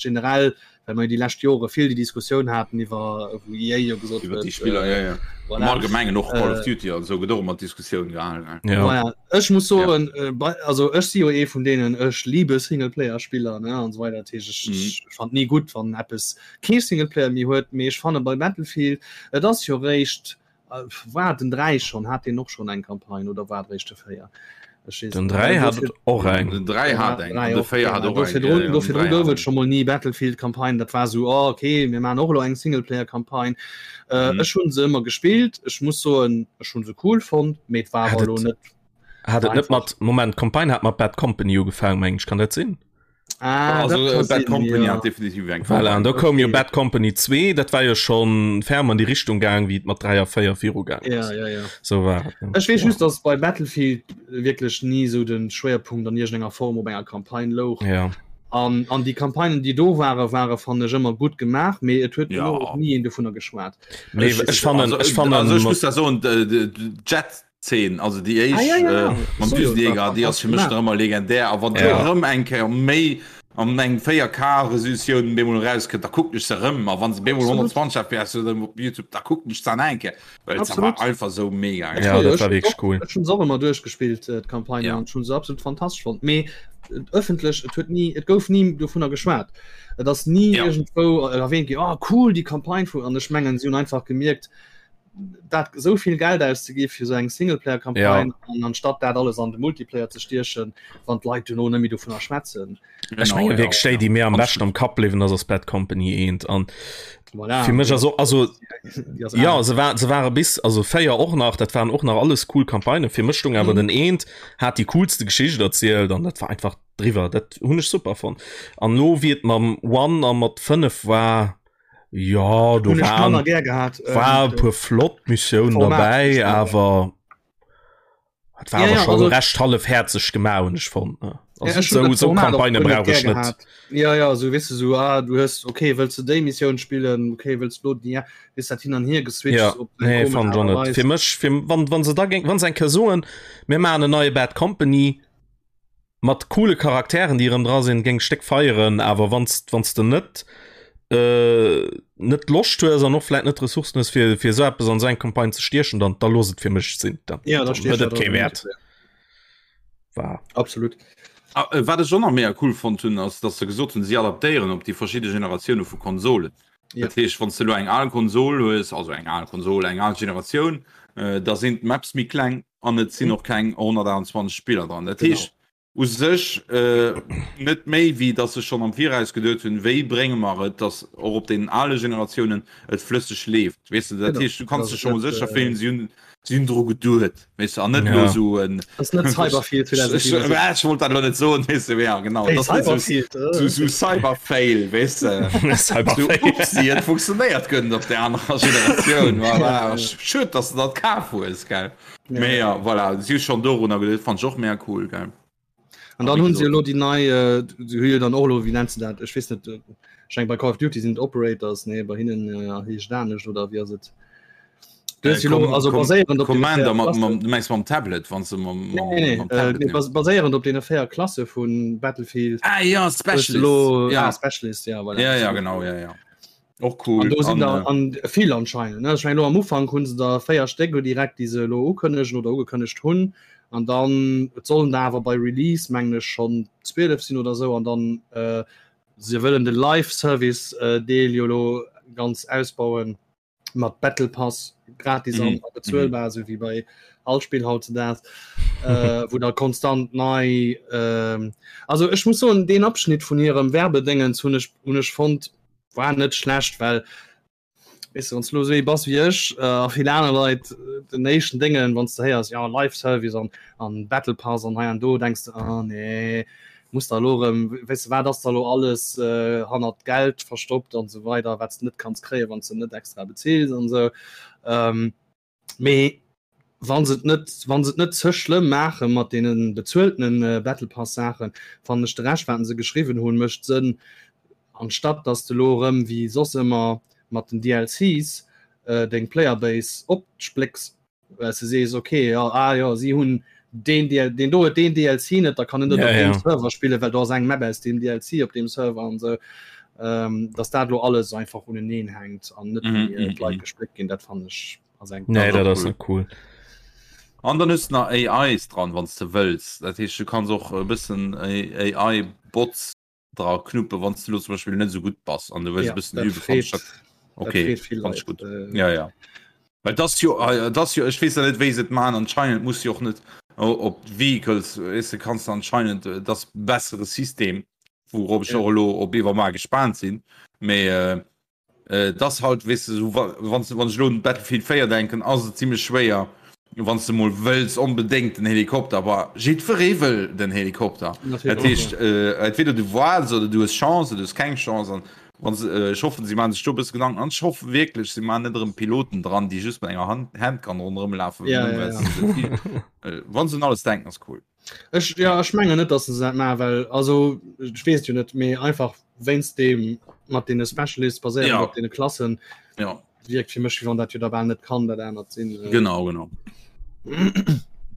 generell well mer jo déi lescht Jore vill déi Diskussioun haten iwwer wou EA jo gesot huet, déi Spiller, ja, ja. Voilà. Am Allgemengen och Call of Duty an esou gëtt och ëmmer d'Diskussioun gehalen. Ja. Voilà. Ech muss soen, ja. äh, also ech si jo ee vun deenen, ech liebe Singleplayer-Spiller ne an so weiter. Dat heescht, ech, mhm. ech fand nie gutt, wann eppes kee Singleplayer méi huet, mee ech fanne bei Battlefield, et ass jo réischt War den 3 schon hat den och schon eng Campagne oder war réischt de 4? Den 3 hat och eng. Den 3 hat eng an de 4 hat och eng. Do virdrun gouf et scho mol ni Battlefield Campagne, dat war sou oh okay mir maachen och elo eng Singleplayer Campagne. Ech hunn se ëmmer gespillt, ech muss soen ech hunn se cool fonnt, mee et war awer elo net. Hat et net mat, Moment, d'Campagne hat mat Bad Company ugefaangen meng ech, kann dat sinn? Ah, also, dat kann Bad sinn, Company ja. hat definitiv eng Voilà, an da koum jo Okay. Bad Company 2, dat war jo schon ferm an die Richtung gaang, wéi et mat 3 a 4 virugaangen Ja, ass. ja, ja. So war et, ne? Ech weess just, dass bei Battlefield wierklech ni sou den Schwéierpunkt an iergendenger Form op enger Campagne louch. Ja. An, an déi Campagnen, déi do waren, ware fannen ech ëmmer gutt gemaach, mee et huet Ja. elo och ni een dovunner geschwat. Mee ech fannen, also, ech fannen, also ech muss da soen, de, de, de Jet Zeen, also déi éischt ah, ja, ja, ja. äh, mam Düsenjäger, déi ass fir mech nach ëmmer legendär. A wann ja. erëm eng Kéier méi an eng 4K-Resolutioun bemol rauskënnt, da kucken ech se erëm. A wann se bemol 120 FPS huet op YouTube, da kucken ech se an eng Kéier. Well se war einfach sou mega. Ja, dat war wierklech cool. Ech hunn se och ëmmer duerchgespillt, äh, d'Campagne, ja. an ech hunn se absolut fantastesch fonnt. Mee ëffentlech, et huet ni, et gouf ni dovunner geschwat. Et ass ni ja. iergendwou erwähnt ginn, oh cool, déi Campagne vu, an ech mengen, si hunn einfach gemierkt, dat esou vill Geld auszegi fir sou eng Singleplayer-Campagne ja. an anstatt dat alles an de Multiplayer ze stiechen, wann d'Leit duerno net méi dovunner schwätzen. Ech menge wierklech déi, déi mir am beschten am Kapp bliwwen ass, ass Bad Company 1 an voilà. fir mech also also ja se war se ware bis also 4 och nach dat waren och nach alles cool Campagnen fir mech stung awer mhm. den eent hat die coolste Geschicht erzielt an dat war einfach driwwer dat hunn ech super fonnt an lo wéi et mam One a mat 5 war Ja do waren, gär gehabt, ähm, war ähm, puer flott Missioun dabei awer hat war ja, ja, ja, schon also, recht hallefherzeg gemacht hun ech fand ne? Ja, also, so, so Kampagne brauch ich net ja ja so weißt du so ah, du hast okay willst du déi Mission spielen okay willst du ja ist dat hin an hier geswitcht ja, nee, fand schon net. fir mech fir, wann wann se da géng wann se eng Kéier soen mir machen eine neue Bad Company Mat coole Charakteren déi erëm dra sinn, géing ech déck feieren, awer wanns wanns de net net d'Loscht hues an och vläit net d'Ressourcen hues fir fir esou eppes an esou eng Campagne ze stiechen, dann da looss et fir mech sinn, dann Ja, da huet stiech et dat kee an den Wäert. Multiplayer. War. Absolut. Ah, wat ech och nach mega cool fonnt hunn, ass dass se gesot hunn, si adaptéieren op déi verschidde Generatioune vu Konsolen. Ja. Dat heescht, wann s de elo eng al Konsol hues, also eng al Konsol, eng al Generatioun, da sinn d'Maps méi kleng, an et sinn och keng 128 Spiller dran. Dat heescht u sech net méi wéi datt se schonn am Viraus geduet hunn, wéi brénge mer et, datt och op deenen ale Generatiounen et flësseg leeft. Weess de, dat heescht du kanns dech scho mol sécher fillen, si hunn si hunn dru geduet, weess de, an net elo esou en. Ass net Cyberfield 2077. Ech wollt dat elo net soen, weess de, ja genau, Hey, et ass net esou Cyberfield, esou esou Cyberfail, weess de. Cyberfail. Sou upsi, et funktionéiert guer net op där anerer Generatioun, voilà, schued, datt s de dat kaf hues, gell. Ja. Mee ja, voilà, si hu schonn dorunner geduet, fand ech och mega cool, gell. An dann hunn se elo déi nei, äh, si hu jo dann och elo, wéi nennt se dat, ech weess net, äh, ech mengen bei Call of Duty sinn et Operators, nee, bei hinnen äh, heescht et anescht, oder wéi ass et? Du hues Äh, jo elo, Com also Com baséierend op deene Commander 4 mat, Klassen. mam, du mengs mam Tablet, wann se mam, Nee, mam, nee, nee, mam äh, Tablet nee, nimm. bas baséierend op deene 4 Klasse vun Battlefield. Ah ja, hues du Specialist. elo, Ja. ah, Specialist, ja, voilà. Ja, ja, genau, ja, ja. Och cool. An do sinn An, der äh, an vill anscheinend. Ne? Ech meng lo am Ufank hunn se der 4 Stéck lo direkt, déi se elo ukënnegen oder ugekënnegt hunn. An dann et sollen der awer bei Release mengen ech schonn 12 sinn oder sou. An dann äh, se wëllen de Live-Service äh, Deel jo lo ganz ausbauen mat Battle Pass gratis an Mhm. a bezuelbar, sou wéi bei. All Spill hautzudags äh, wou da konstant nei äh, also ech muss soen deen Abschnitt vun hirem Werbedéngens hunn ech hunn ech fonnt war net schlecht, well weess de wann s du lo esou ee bass wéi ech äh, a vill aner Leit äh, den éischten Déngen wann s de héiers ja Live Service an an Battle Pass an hei an do denks de ah nee muss da lo erëm weess de wat ass da lo alles äh, hannert Geld verstoppt an esou weider wat s de net kanns kréien wann s de net extra bezills an esou ähm, Mee wann se et net wann se et net ze schlëmm maache mat deene bezueltenen Battle Pass Saachen, fannen ech de Rescht wat se geschriwwen hunn mécht Sënn, anstatt dass de lo erëm wéi soss ëmmer mat den DLCs deng Player Base opsplécks, well s de sees ok jo ah jo si hunn deen DL deen do huet deen DLC net, da kann en net op deem Server spillen, well do ass eng Map aus deem DLC op deem Server an esou. Ähm, dass dat lo alles einfach uneneen hänkt an net mm -hmm. d'Leit gespléckt ginn, dat fand ech ass eng Nee, dat ass net cool. An dann hues nach AIs dran, wann du wëlls. Dat heescht du kanns och e bëssen AI-Bots dra knuppen, wann du lo zum Beispiel net sou gutt bass an du wëlls e bëssen üben. Okay, fand ich gut. Äh, ja, ja. Well das jo äh, das jo ech weess ja net wéi se et man anscheinend muss jo och net op Vehicles weess de kanns anscheinend äh, das bessere System wourop ech och elo op iwwermar gespaant sinn mee äh, äh, das halt weess de so wann wann ech elo un Battlefield 4 denken ass et zimmlech schwéier wann s de mol wëlls onbedéngt den Helikopter aber jiddweree wëll den Helikopter dat heescht äh, entweder du waarts oder du hues Chance oder du hues keng Chance an Wann se, äh, ech hoffen, si maachen sech do e bësse Gedanken an ech hoffe wierklech, si maachen net erëm Piloten dran, déi just mat enger Hand Handgun ronderëm lafen, Ja, ja, ja. Äh, wann se un alles denken, ass cool. Ech, ja, ech mengen net, dass se dat maachen, well, also, ech weess et jo net, mee einfach wéinst deem mat deene Specialists baséierend Ja. op deene Klassen, Ja. wierkt fir mech, wéi wann dat jo da bal net kann dat anert sinn. Äh. Genau, genau.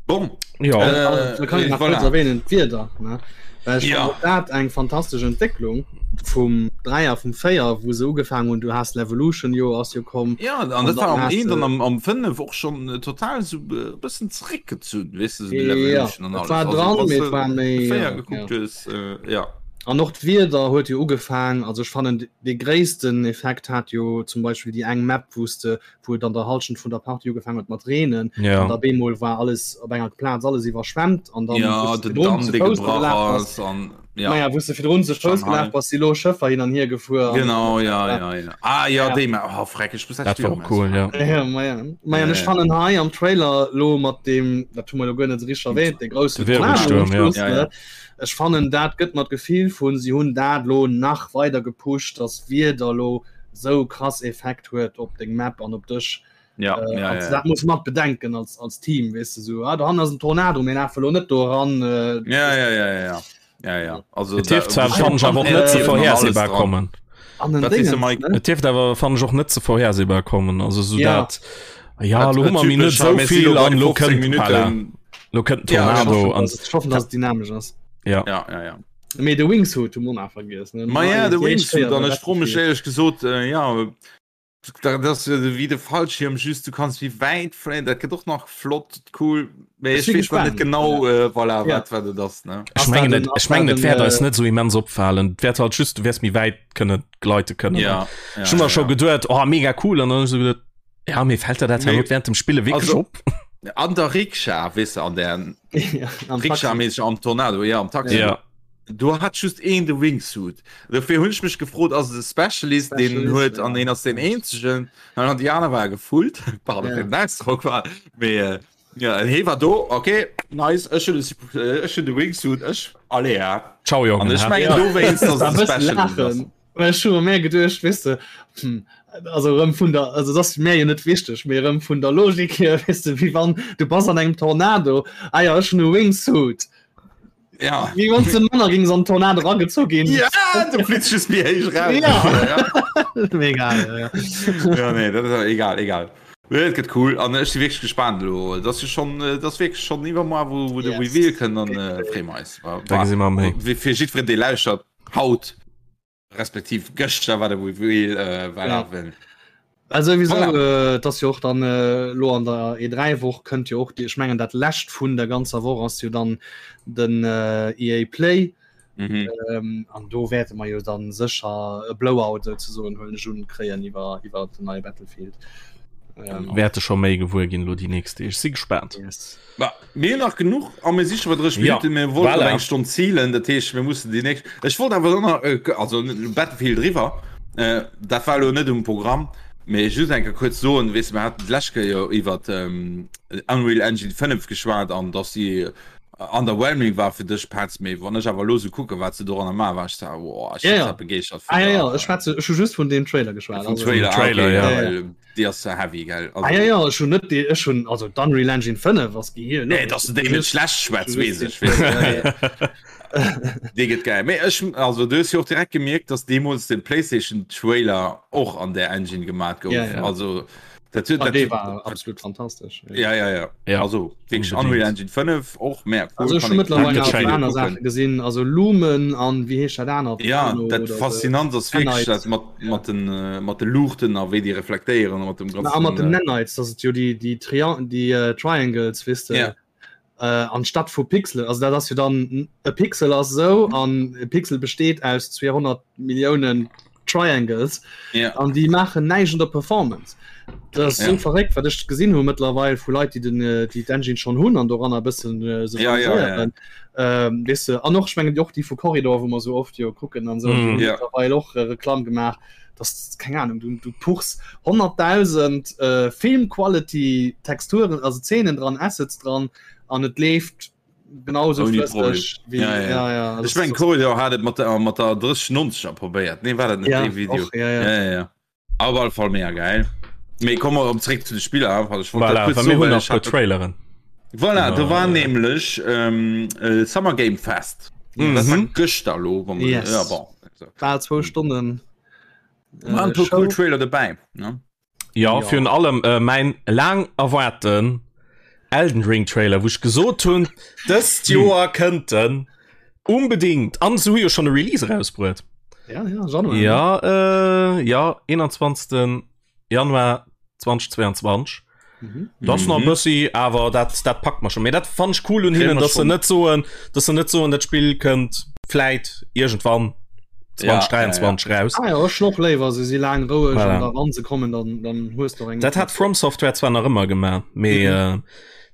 Bon. Ja. Äh, da kann ich nach voilà. kurz erwähnen, d'Wieder, ne? Well ich Ja. fand och dat eng fantastesch Entwécklung vum 3 a vum 4, wou se ugefaangen hunn, du has Levolution jo ass jo komm. Ja, an An dat war dann am has 1 de- an am, am 5 och schon äh, total so äh, bëssen zréckgezunn, weess du, so die Ja, Levolution an et alles. war Also, dran, wann mee du et war méi, de 4 ja, gekuckt ja. hues, äh, ja. An och d'Wieder huet jo ugefaang, also ech fannen dee gréissten Effekt hat jo zum Beispill déi eng Map, wou s de, wou et an der Halschent vun der Partie ugefaang huet mat reenen Ja. an da bemol war alles op enger Plaz alles iwwerschwemmt an dann Ja, wou s de den virdrun Damm, zu dee Fouss gebrach gelaf bass, ass an ja. naja, wou s de virdrun zu Fouss Shanghai. gelaf bass, si lo Schëffer hin an hier gefuer an Genau, ja, ja, ja. Ah, ja, Ja. déi Map, oh, freck, ech muss dat Dat Spill war och cool, ja. Ja, ma ja. Ma ja, Ja, ech ja. fannen hei am Trailer lo mat dem, dat hu mer lo guer net esou richteg erwähnt, de groussen De Tornado am Wirbelsturm, ja. Schluss, Ja, ja. ne? Ech fannen dat gëtt mer d'Gefill vun si hunn dat lo nach weider gepusht, dass Wieder lo sou krass Effekt huet op deng Map an op dech. Ja, Äh, ja, an ja. dat muss mat bedenken als, als Team, weess de sou, ah, dohannen ass en Tornado, mir lafe lo net do eran. Äh, Ja, ja, ja, ja, ja. Ja, ja. Also, Et dierft zwar fannen ech awer och net ze Äh, vorhersehbar kommen. an den Wat sees du, Dingens, Mike? ne? Et dierft awer fannen ech och net ze vorhersehbar kommen. Also sou Ja. dat ja, lo hu mer mir net sou vill an lo kënnt voilà. Lo kënnt Ja, ech Tornado an Ech hoffen, dass et dynamesch ass. ja. Ja, ja, ja. Mee de Wingsuit hu mer nach vergiess. Ne? Ma ja, de Déi éischt Wingsuit Kéier an bei ech fro mech Battlefield. éierlech gesot, äh, ja, dat ass jo wéi de Fallschirm, just du kanns méi wäit fléien, dat gëtt och nach flott, cool, mee Ech ech si weess nach net gespaant. genau, äh, voilà, Ja. wat wat et ass, ne? Ech Ass mengen dat et en- ech ass mengen dat et wäert en, eis äh, net sou immens opfalen. Et wäert halt just du wäers méi wäit kënne gleite kënnen. Ja, ja, Ech hu mer ja, scho ja. geduet, oh mega cool an dann hu ech sou geduet, ja mee fält der dat Mee- herno während dem Spille wierklech Also- op? An der Rikscha, weess de, an der Ja, am Taxi. Rikscha-mäßig am Tornado, ja, am Taxi. Ja. Do hat just een de Wingsuit. Dofir hunn ech mech gefrot, ass et e Specialist, deen en Specialist, huet ja. an een ass deen eenzegen. An déi aner ware gefullt. Pardon Ja. fir den Ausdrock, war mee äh, ja, en hee war do, okay, nice, ech hunn de Sup- äh, ech hunn de Wingsuit, ech, allez, ja. Ciao Jongen. An ech ha? mengen Ja. dowéinst, dass Da et e bëssen Specialist ass. laachen. Well ech hu mer geduecht, weess de, hm, also erëm vun der, also dat ass mär jo net wichteg, mee erëm vun der Logik hier, weess de, wéi wann du bass an engem Tornado, ah ja, ech hunn e Wingsuit. Ja. Wéi wann s de manner gings an Tornado eragezu ginn. Ja, du flitz just méi héich raus. Ja. ja. Mega, ja, ja. Ja, nee, dat ass egal, egal. Nee, et gëtt cool an ech si wierklech gespaant elo. Dat ass jo schon, dat ass wierklech schon iwwermoar, wou, wou de Yes. Reveal kënnt an äh, freeë mer eis. Wa- Da gesi mer méi. Fir jiddwereen, dee lauschtert, haut respektiv gëschter war de Reveal äh, war Ja. ja. Also sowieso Voilà. äh, dass jo och dann äh, lo an der E3 Woch kënnt jo och déi ech mengen dat lescht vun der ganzer Woch ass jo dann den äh, EA Play Mhm. ähm, an do wäerte mer jo dann sécher e Blowout souzesoen huelen ech un kréien iwwer iwwer den neie Battlefield. Ähm, Wäerte scho méi gewuer ginn lo déi nächst Deeg. Si gespaant. Yes. Ba, mir hunn nach genuch a mir si scho bei 30 Minuten. Ja, mir wollten voilà. eng Stonn zielen, dat heescht mir mussen déi nächst. Ech wollt awer nach äh, also Battlefield driwwer. Äh, dat war lo net um Programm. Mee just eng Kéier kuerz soen, weess de, mir haten d'lescht Kéier jo iwwer ähm, Unreal Engine 5 geschwat an dass si underwhelming war fir dech Petz, mee wann ech awer elo sou kucken, wat se doranner maachen, war ech so, wow, ech Ja, sinn ja. zwar begeeschtert Ah, vun ja, ja, der ech schwätze ech hu just vun deem Trailer geschwat. vum Also, Trailer, ah, Trailer, okay, ja. ja, ja. well déi ass heavy, gell, Ah, ja, also ja, ech hunn net déi ech hunn also d'Unreal Engine 5 ass Gehir Nee, dass du déi net schlecht schwätz, weess ech, weess ech. Ja, ja. Dee gëtt geil. Mee ech, also du hues jo och direkt gemierkt, dass deemools de PlayStation Trailer och an där Engine gemat gouf. Ja, ja. Also dat huet, Ah, dat dee huet, war absolut fantastesch. ja, ja, ja. Ja, Also wierklech unbedingt. Unreal Engine 5 och mega cool. Also ech Kann hu een mëttlerweil Danke, nach Shane. aner kucken. Saache gesinn, also Lumen an wéi heescht dat anert? Ja, Nano dat oder sou. faszinant ass wierklech Nanites. dat mat, mat den, äh, mat de Luuchten a wéi déi reflektéieren a mat dem Na, a mat den ganzen. Äh, Nanites, dat et jo déi, déi, Trian déi äh, Triangles, weess de. ja. äh, anstatt vu Pixel also dat ass jo dann e Pixel ass sou an e Pixel besteet aus 200 Milliounen Triangles Ja. an déi maachen näischt un der Performance. Dat ass sou Ja. verréckt wat ech gesinn hu mëttlerweil vu Leit déi den äh, déi d'Engine schonn hunn an doranner e bëssen äh, se Ja, ja, ja. amuséieren. Ähm, weess de, an och ech mengen och déi vu Corridor wou mer sou oft jo kucken an sou, déi Mhm. hunn Ja. mëttlerweil och äh, Reklamm gemaach dass keng Ahnung du, du puchs 100.000 äh, Film Quality Texturen also Szenen dran Assets dran an et leeft genauso Ouni Problem. flësseg wéi Ja, ja. ja, ja, also Ech meng Corridor hat et mat der mat der 3090er probéiert. Nee war dat net ja, dee Video? och, ja, ja. Ja, ja, ja. Op alle Fall mega geil. Mee komme mer erëm zréck zu de Spiller. Also ech wollt dat Voilà, kuerz well mir soen, hunn well nach ech puer hat dat Traileren. Voilà, do Genau. war nämlech ähm, äh, Summer Game Fest. Dat war Mhm. gëschter lo, wann man, Yes. ja, bon. Also, Bal zwou Stonnen waren äh, e puer Show. cool Trailer dobäi, ne? Ja, Ja. virun allem äh, mäin laang erwaarten Elden Ring Trailer, wou ech gesot hunn, dëst Joer kënnt en unbedingt. An se hu jo schonn e Release erausbruet. Ja, ja, Januar. ne? Ja, äh, ja, 21. Januar 2022. Mhm. Das mhm. nach bëssi awer dat dat packt man schon mir dat fand ich cool und hinnen dass se net soen dass se net soen dat Spiel kënnt vläit irgendwann 2023 ja, ja, ja. raus ah, ja, noch léiwer se si lang roueg voilà. da wann se kommen dann dann hues du eng dat hat From Software zwar nach ëmmer gemacht mee mhm. äh,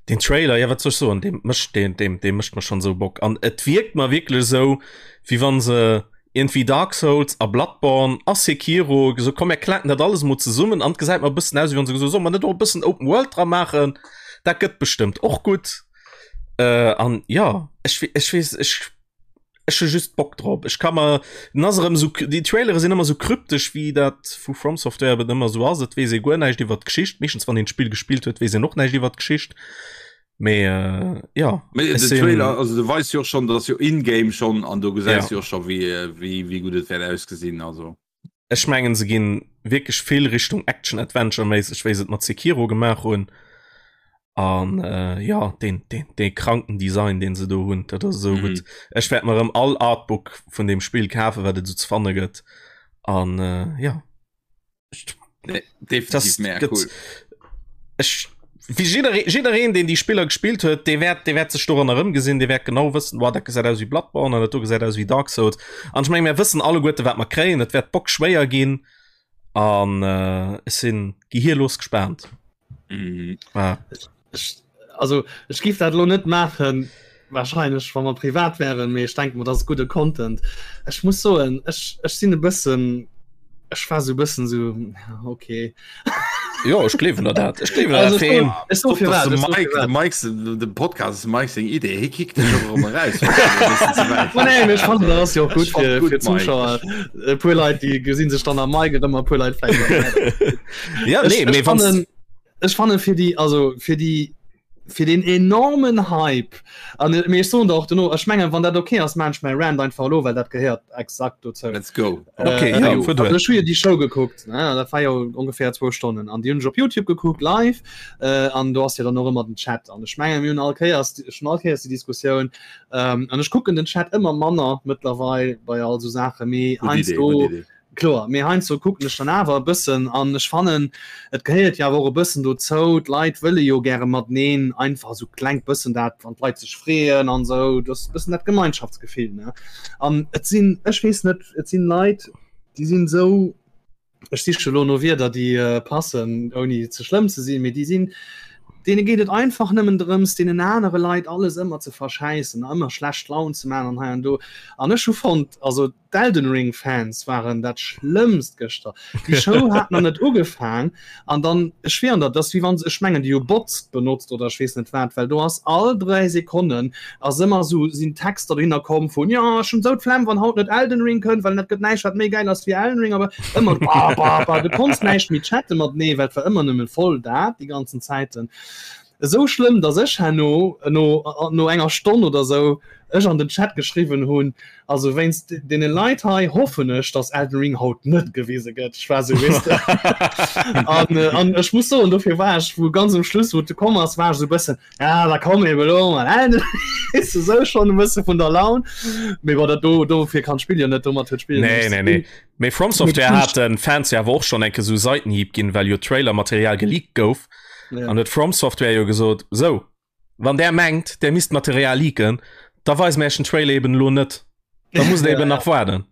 den Trailer ja wat soll ich soen dem mëscht den dem dem mëscht man schon so Bock an et wirkt mal wirklich so wie wann se Iergendwéi Dark Souls a Bloodborne a Sekiro gesot, komm mir klaken dat alles emol zesummen an et gesäit mer e bëssen aus, wéi wann se gesot hu, solle mer net och e bëssen Open World dra maachen, dat gëtt bestëmmt och gutt. Äh, an jo, ech ech weess, ech ech hu just Bock drop. Ech ka mer, den ass erëm esou, déi Trailere sinn ëmmer esou kryptesch, wéi dat vu From Software eben ëmmer esou ass. Et weess ee guer näischt iwwer d'Geschicht. Meeschtens wann een d'Spill gespillt huet, weess een och näischt iwwer d'Geschicht. Mee äh, ja Mee ech den sinn Trailer also du weis jo och schon dass jo in-game schon an do gesäis ja. jo och schon wéi äh, wéi wéi gutt et wäert ausgesinn also. Ech mengen se ginn wierklech vill Richtung Action Adventure méisseg wéi se et mat Sekiro gemaach hunn an äh, ja den den dee kranken Design deen se do hunn dat ass esou Mhm. gutt. Ech wäert mer erëm all Artbook vun deem Spill kafen wat et esou ze fanne gëtt an äh, ja. Nee, definitiv mega cool. Ech wéi jidderee jiddereen deen déi Spiller gespillt huet, dee wäert dee wäert sech doran erëmgesinn, dee wäert genau wëssen, wow dat gesäit aus wéi Bloodborne an dat do gesäit aus wéi Dark Souls. An ech menge mir wëssen alleguerte wat mer kréien, et wäert bockschwéier ginn an äh, ech sinn gehirlos gespaant. Mhm. Ah. Ech, also ech giff dat lo net maachen wahrscheinlech wa mer privat wären, mee ech denke mer dat ass gudde Content. Ech muss soen ech ech sinn e bëssen ech war sou e bëssen sou ja okay. Jo ech gleewen der dat. Ech gleewen der Also dat ech feen. soen ech soe Stop, dass firwat de ech soe Mike, de firwat. Mike, de Podcast ass dem Mike seng Idee. Hie kickt dech och erëm eraus, wann et e bëssen ze wäit Ma geet. nee, mee ech fannen dat ass jo och Ech gutt fand fir gutt, fir Mike. Zuschauer. Ech E puer Leit déi gesinn sech dann am Mike erëm a puer Leit vläicht am Mike. Ja Ech nee ech mee wanns fannen Ech fanne fir déi also fir déi fir den enormen Hype an äh, mee ech soen der och duerno, ech mengen wann dat okay ass, maan ech mäi Rant einfach elo, well dat gehéiert exakt dozou. Let's go. Okay, Äh, ja, also fuer duer. ech hu jo déi Show gekuckt, ne, dat war jo ongeféier zwou Stonnen an déi hunn ech op Youtube gekuckt live äh, an do ass jo dann och ëmmer den Chat an ech mengen mir hunn all Kéiers ech hunn all Kéiers déi Diskussioun ähm, an ech kucken den Chat ëmmer manner mëttlerweil bei all sou Saache mee Gutt Idee, heiansdo gutt Idee. Kloer, mee heiansdo kucken ech dann awer e bëssen an ech fannen, et gehéiert jo awer och e bëssen dozou, d'Leit wëlle jo gäre mateneen einfach esou klengt bëssen dat, wann d'Leit sech freeën an esou, dat ass e bëssen dat Gemeinschaftsgefill, ne? An et sinn, ech weess net, et sinn Leit, déi sinn esou. Ech siche lo no Wierder, déi äh, passen, ouni ze schlëmm ze sinn, mee déi sinn, deene geet et einfach nëmmen drëms, deenen anere Leit alles ëmmer ze verschäissen, ëmmer schlecht Laun ze man an hei an do. An ech hu fonnt, also d'Elden Ring Fans waren dat schlëmmst gëschter. Déi Show hat nach net ugefaang an dann, ech schwieren der, dat ass wéi wann se, ech mengen déi hu Bots benotzt oder ech weess net wat, well do ass all 3 Sekonnen ass ëmmer sou sinn Texter dohinner komm vun jo ech hunn sou d'Flemm wann haut net Elden Ring kënnt, well dat gëtt näischt wat méi gäil ass wéi Elden Ring, awer ëmmer ba ba ba du konns näischt méi chatte matenee, well et war ëmmer nëmmen voll dat déi ganzen Zäiten. Esou schlëmm, datt ech herno no no enger Stonn oder sou ech an den Chat geschriwwen hunn, also wéinst deene Leit hei hoffen ech, datt Elden Ring haut net gewise gëtt. Ech war sou, weess de. An an ech muss soen, dofir war ech wou ganz um Schluss, wou et komm ass, war ech sou e bëssen, Ja, da komm eben elo mal Elden Ring. Weess de, sou schonn e bësse vun der Laun. Mee bon, dat do dofir kann d'Spill jo net, domat huet d'Spill jo Nee, näischt ze nee, nee. dinn. Mee From Software hat den Fans jo awer och schonn enke sou Seitenhieb ginn, well jo Trailer-Material geleakt gouf. Ja. An huet From Software jo gesot, sou, wann där mengt, där misst Material leaken, da weise mir iech den Trailer eben elo net. Da musst der Ja, eben ja. nach waarden.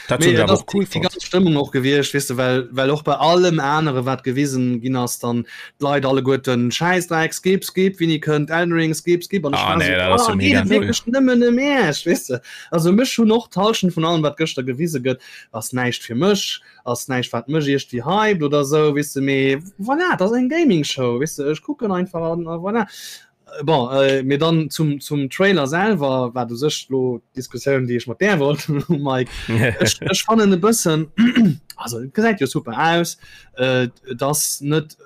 Dat Mee hunn ech et awer ass och cool déi fonnt. ganz Stëmmung och gewiescht, weess de, well, well och bei allem anere wat gewisen ginn ass, dann d'Leit alleguerten Schäissdreck, skip, skip, wéini kënnt Elden Ring, skip, skip, an ech Ah war nee, sou, dat ass jo oh, geet mega et null. wierklech nëmmen ëm Iech, weess de. Also mech hunn och d'Hallschent vun allem wat gëschter gewise gëtt, ass näischt fir mech, ass näischt wat mech iergendwéi hypt oder sou, weess de, mee voilà, et ass eng Gaming Show, weess de, ech kucken einfach an a voilà. Bon, äh, mee dann zum, zum Trailer selwer, wat u sech lo d'Diskussioun, déi ech mat där wollt, Mike. Ech, ech fannen e bëssen, also et gesäit jo super aus, äh, et ass net,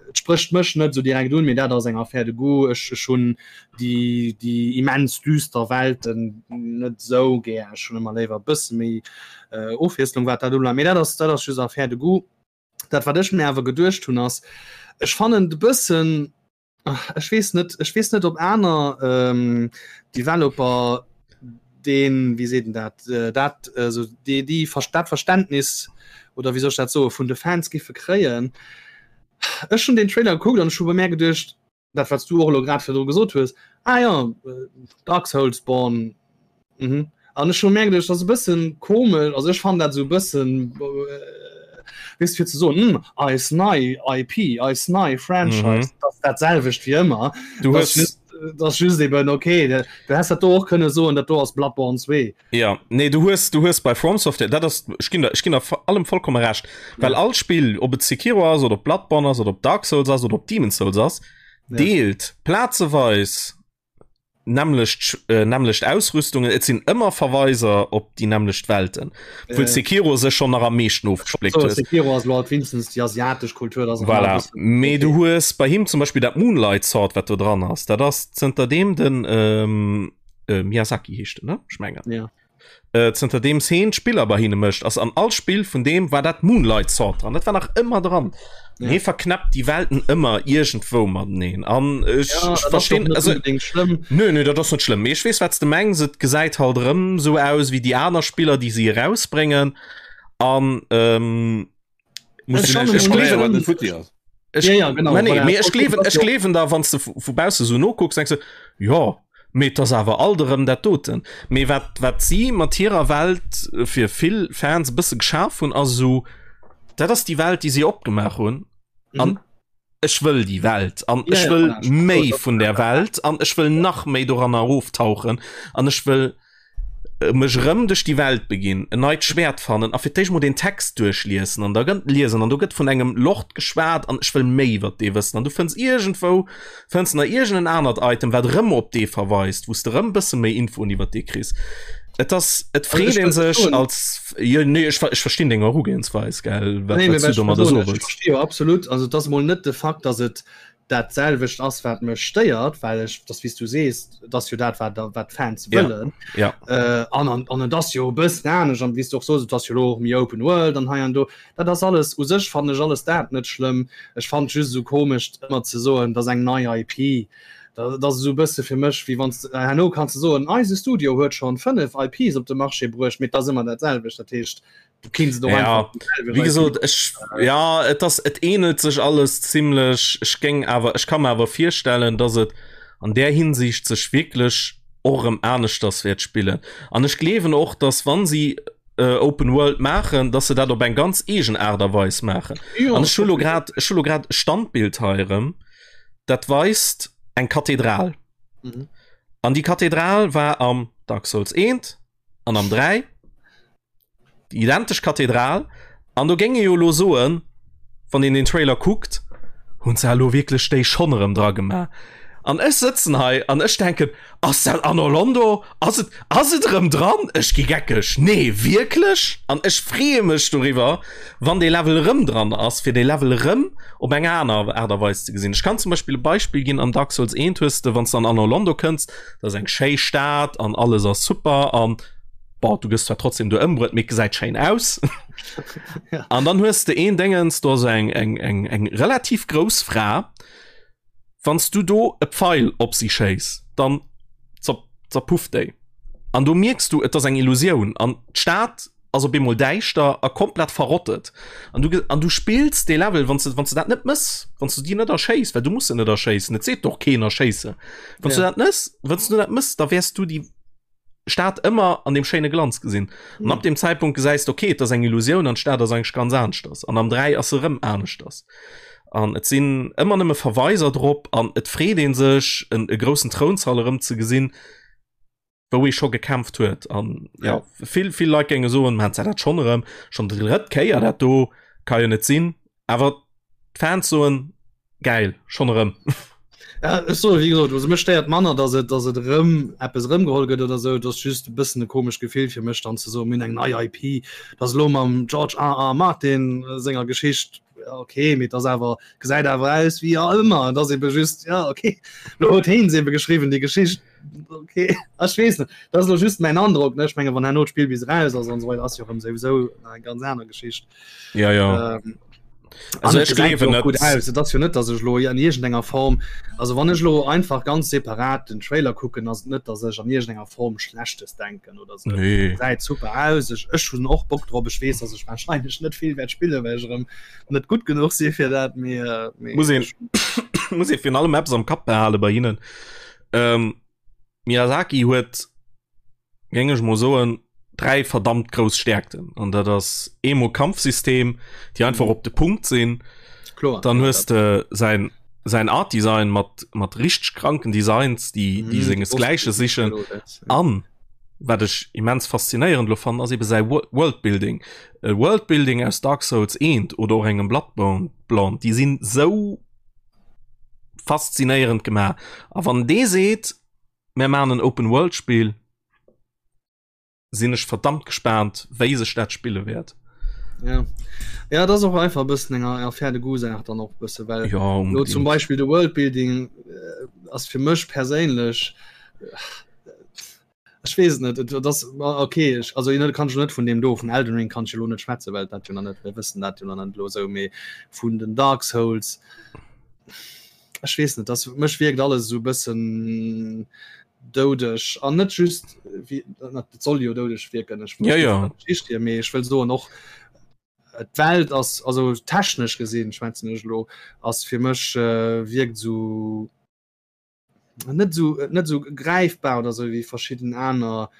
et sprécht mech net sou direkt un, mee dat ass eng Affaire de goût. Ech, ech hunn déi, déi immens düster Welten net sou gär. Ech hunn ëmmer léiwer e bësse méi äh, Ofwiesslung, wat dat ubelaangt. Mee dat ass, dat ass just Affaire de goût. Dat, wat ech mir awer geduecht hunn, ass, ech fannen et e bëssen, Ech weess net, ech weess net op aner ähm, Developer den wie seet dat äh, dat äh, so déi déi dat Verständnis oder wie soll ech dat soe vun de Fans giffe kréien. Ech hunn den Trailer gekuckt an ech hu bei mär geduecht, dat wat s du och elo grad virdru gesot hues, ah ja, äh, Dark Souls Born Mhm. An ech hu mir geduecht, dat ass e bëssen komesch, also ech fannen dat esou e bëssen, weess de, fir ze soen, hm, eis nei IP, eis nei Franchise, mhm. dat ass dat selwecht wéi ëmmer. Du Das hues just, das ass just eben okay, du, du häss dat do och kënne soen, dat do ass Bloodborne 2. Ja, nee, du hues, du hues bei From Software, dat ass, ech ginn der, ech ginn der allem vollkomme Recht, well Ja. all Spill, ob et Sekiro ass oder ob Bloodborne ass oder ob Dark Souls ass oder ob Demon's Souls ass, Ja. deelt plazeweis nämmlecht äh, nämmlecht Ausrüstungen, et sinn ëmmer Verweiser op déi nämmlecht Welten. Obwuel Äh. Sekiro sech schon nach am meeschten ofgespléckt So, huet. Sekiro ass lo halt wéinstens déi asiatesch Kultur, dat ass Voilà. e bëssen- Mee du hues bei him zum Beispill dat Moonlight Sword, wat do dran ass. Dat ass zënter deem den ähm, äh, Miyazaki heescht en, ne? Ech mengen. Ja. Äh, zënter deem heen d'Spiller bei hinne mécht, ass an all Spill vun deem war dat Moonlight Sword dran. Dat war nach ëmmer dran. Ja. Hee verknäppt déi Welten ëmmer iergendwou mateneen. An ech, Ja, ech dat ass verstinn doch net also, unbedingt schlëmm. Nö, nö, dat ass net schlëmm. Mee ech weess, wat s de mengs. Et gesäit halt erëm sou aus wéi déi aner Spiller, déi si erausbréngen. An ähm, Muss Ech du fannen näischt ech erklären, wat gleewen- net futti ass. Ech, Ja, ja, genau, Mä nee, voilà. mee ech gleewen, Das ech jo. gleewen da, wann s de vu bausse sou nokucks, denks de, jo, mee et ass awer alt erëm dat doten. Mee wat, wat si mat hirer Welt fir vill Fans e bësse geschaf hunn, ass esou, dat ass déi Welt, déi si opgemaach hunn. An Mhm. ech wëll déi Welt an Ja, ech ja, wëll voilà, ech méi das- vun der Welt an ech wëll nach méi doranner eroftauchen an ech wëll mech erëm duerch déi Welt beginn, en neit Schwäert fannen a fir d'éischt mol den Text duerchliessen an da gëtt liesen an do gëtt vun engem Lord geschwat an ech wëll méi iwwer dee wëssen an du fënns iergendwou fënns nach iergend en anert Item wat erëm op dee verweist, wou s de erëm bësse méi Infoen iwwer dee kriss. Et ass, et Also freet ech een wëll sech soen- als, jo nee ech ech verstinn deng Erugehensweis gell, wat Nee, wat mee s du ech domadder soen, soe ech wëlls. versti jo absolut, also et ass mol net de Fakt, datt et dat selwecht ass wat mech stéiert, well ech das wéi s du sees, et ass jo dat wat wat d'Fans Ja. wëllen Ja. äh, an an an et ass jo e bëssen anescht an wéi s du och soos, et ass jo elo och méi Open World an hei an do. Dat ass alles u sech fannen ech alles dat net schlëmm. Ech fannen et just esou komesch ëmmer ze soen, et ass eng nei IP. Dat ass esou e bësse fir mech wéi wann s de herno kanns de soen, eise Studio huet schonn 5 IPs op de Marché bruecht, mee et ass ëmmer dat selwecht. Dat heescht, du kinns et och Ja, einfach déi selwecht Wie IP. gesot ech ja et ass et ähnelt sech alles zimmlech. Ech géing awer ech ka mer awer virstellen, dass et an där Hinsicht sech wierklech och erëm aneschters wäert spillen. An ech gleewen och, dass wann si. äh, Open World maachen, dass se dat op eng ganz eegen Aart a Weis maachen. An ech hu lo grad ech hu lo grad e Standbild hei erëm, dat weist eng Kathedral. Mhm. An déi Kathedral war am Dark Souls 1 an am 3 déi identesch Kathedral. An do géing ee jo elo soen, wann een den Trailer kuckt, hunn se elo wierklech déi schonn erëm dra gemaach? An ech sëtzen hei an ech denken, ass dat Anor Londo? Ass et, ass et erëm dran? Ech gi geckeg, nee wierklech? An ech freeë mech doriwwer, wann dee Level erëm dran ass, fir dee Level erëm op eng aner Aart a Weis ze gesinn. Ech kann zum Beispill e Beispill ginn, Am Dark Souls 1 hues de, wann s de an Anor Londo kënns, dat ass eng schéi Stad an alles ass super an Bon, du gëss zwar trotzdem do ëmbruet, mee et gesäit schéin aus. Ja. An dann hues de een Déngens, do ass eng, eng, eng, eng relativ grouss Fra. Wann s du do e Pfeil op si schéiss, dann zer, zerpufft déi. An do mierks du, et ass eng Illusioun. An d'Stad ass op eemol däischter a komplett verrottet. An du, an du spills dee Level, wann s de, wann s de dat net mëss, wann s du déi net erschéiss, well du muss se net erschéissen, et seet och keen erschéisse. Wann s du Ja. dat nëss, wann s du dat mëss, da wäers du déi Stad ëmmer an dem schéine Glanz gesinn. An ab dem Zeitpunkt gesäis de, okay, et ass eng Illusioun an d'Stad ass eigentlech ganz aneschters. An am 3 ass se erëm aneschters. An et sinn ëmmer nëmme Verweiser drop an et freet ee sech, en e groussen Trounsall erëm ze gesinn, wou ee scho gekämpft huet. An ja, vill, vill Leit géinge soen, man, dat schonn erëm, schonn déi drëtt Kéier dat do, ka jo net sinn. Awer d'Fans soen, Gäil, schonn erëm. Ja, ech soe wéi gesot, also mech stéiert manner, datt et, datt et erëm eppes erëmgeholl gëtt oder esou. Et ass just e bëssen e komescht Gefill fir mech dann ze soen, mir hunn eng nei IP, dat ass elo mam George R. R. Martin senger Geschicht, ja okay, mee et ass awer, gesäit awer aus wéi ja ëmmer. Et ass ebe just, ja okay, elo huet heen se ebe geschriwwen, déi Geschicht, okay, ech weess net, dat ass elo just mäin Androck, ne. Ech menge wann herno d'Spill bis eraus ass an esou weider, ass jo erëm souwisou eng ganz aner Geschicht. Ja, ja. Ähm, Also ech gleewen net. Gut aus. Et ass jo net, dass ech lo an iergendenger Form, also wann ech lo einfach ganz separat den Trailer kucken, ass et net, dass ech an iergendenger Form Schlechtes denken oder sou. Nee. Gesäit super aus. Ech, ech hunn och Bock drop. Ech weess, dass ech wahrscheinlech net vill wäert spillen, well ech erëm net gutt genuch si fir dat, mee, mee Muss een, muss ee virun allem eppes am Kapp behale bei hinnen. Ähm, Miyazaki huet géing ech mol soen, dräi verdammt grouss Stärkten. An dat ass eemol Kampfsystem, déi einfach op de Punkt sinn. Kloer. Dann hues de säin säin Art Design mat mat richteg kranken Designs, déi déi mhm, sengesgläiche sichen. An wat ech immens faszinéierend lo fannen, ass ebe säi Worldbuilding. E Worldbuilding aus Dark Souls 1 oder och engem Bloodborne, déi sinn sou faszinéierend gemaach. A wann dee seet, Mär maachen en Open World Spill, sinn ech verdammt gespaant wéi sech dat spille wäert. Ja. Ja, dat ass och einfach e bëssen eng Affaire de goût Saach dann och e bësse well ja, lo zum Beispill de Worldbuilding äh, ass fir mech perséinlech äh, ech weess net et das okay ech, also net kann ech net vun dem do vun Elden Ring kann ech lo net schwätze well dat jo nach net mir wëssen dat jo nach net lo sou mee vun den Dark Souls Ech weess net, das mech wierkt alles esou bëssen doudeg an net just wie dat soll jo doudeg wierken ech ja, ja. Geschicht mee ech wëll soen och d'Welt ass also technesch gesinn schwätzen ech lo ass fir mech äh, wierkt sou net sou net sou greifbar oder sou wéi verschidden aner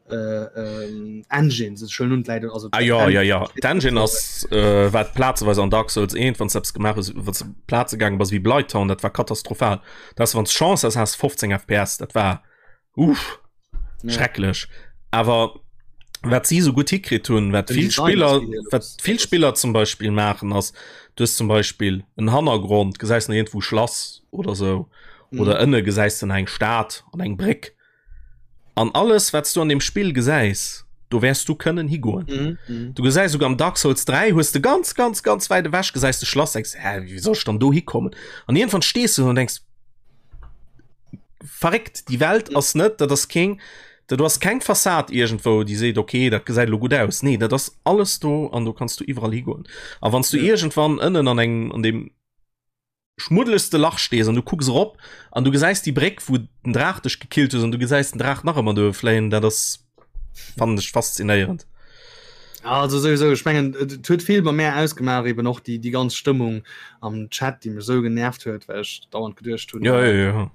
äh, ähm, Engines ist schon nun leider also ah, ja, ja, ja. D'Engine ass äh, wat plazeweis an Dark Souls 1 wann selbst gemaach hues wann du Plaze gaange bass wéi Blighttown dat war katastrophal das wann Chance ass has 15 FPS dat war uff ja. schrecklech awer wat si so gut hikritt hunn wat Den vill Design Spiller ass geil, wat das- vill das- Spiller zum Beispiel maachen ass du hues zum Beispiel en Hannergrond gesäis nach irgendwou Schlass oder sou Mhm. oder ënne gesäis du nach eng Stad an eng Bréck An alles wat s du an dem Spill gesäis, do wäers du kënnen higoen. Mhm, mhm. Du gesäis souguer am Dark Souls 3 hues de ganz ganz ganz wäit ewech gesäis de Schlass denkst hä wéi soll ech dann do hikommen? An iergendwann stees du do an denkst verréckt déi Welt ass net dat ass keng dat do ass keng Fassad iergendwou déi seet okay dat gesäit elo gutt aus. Nee dat ass alles do an do kanns du iwwerall higoen. A wann s du Ja. iergendwann ënnen an engem an deem schmuddelegste Lach stees an du kucks erop an du gesäis déi Bréck wou den Draach dech gekillt hues an du gesäis den Draach nach ëmmer do fléien, dat ass fannen ech faszinéierend. Ja, also sowieso ech mengen et huet vill bei mär ausgemaach eben och déi déi ganz Stëmmung am Chat déi mech sou genervt huet well ech dauernd geduecht hunn Ja, ja, ja.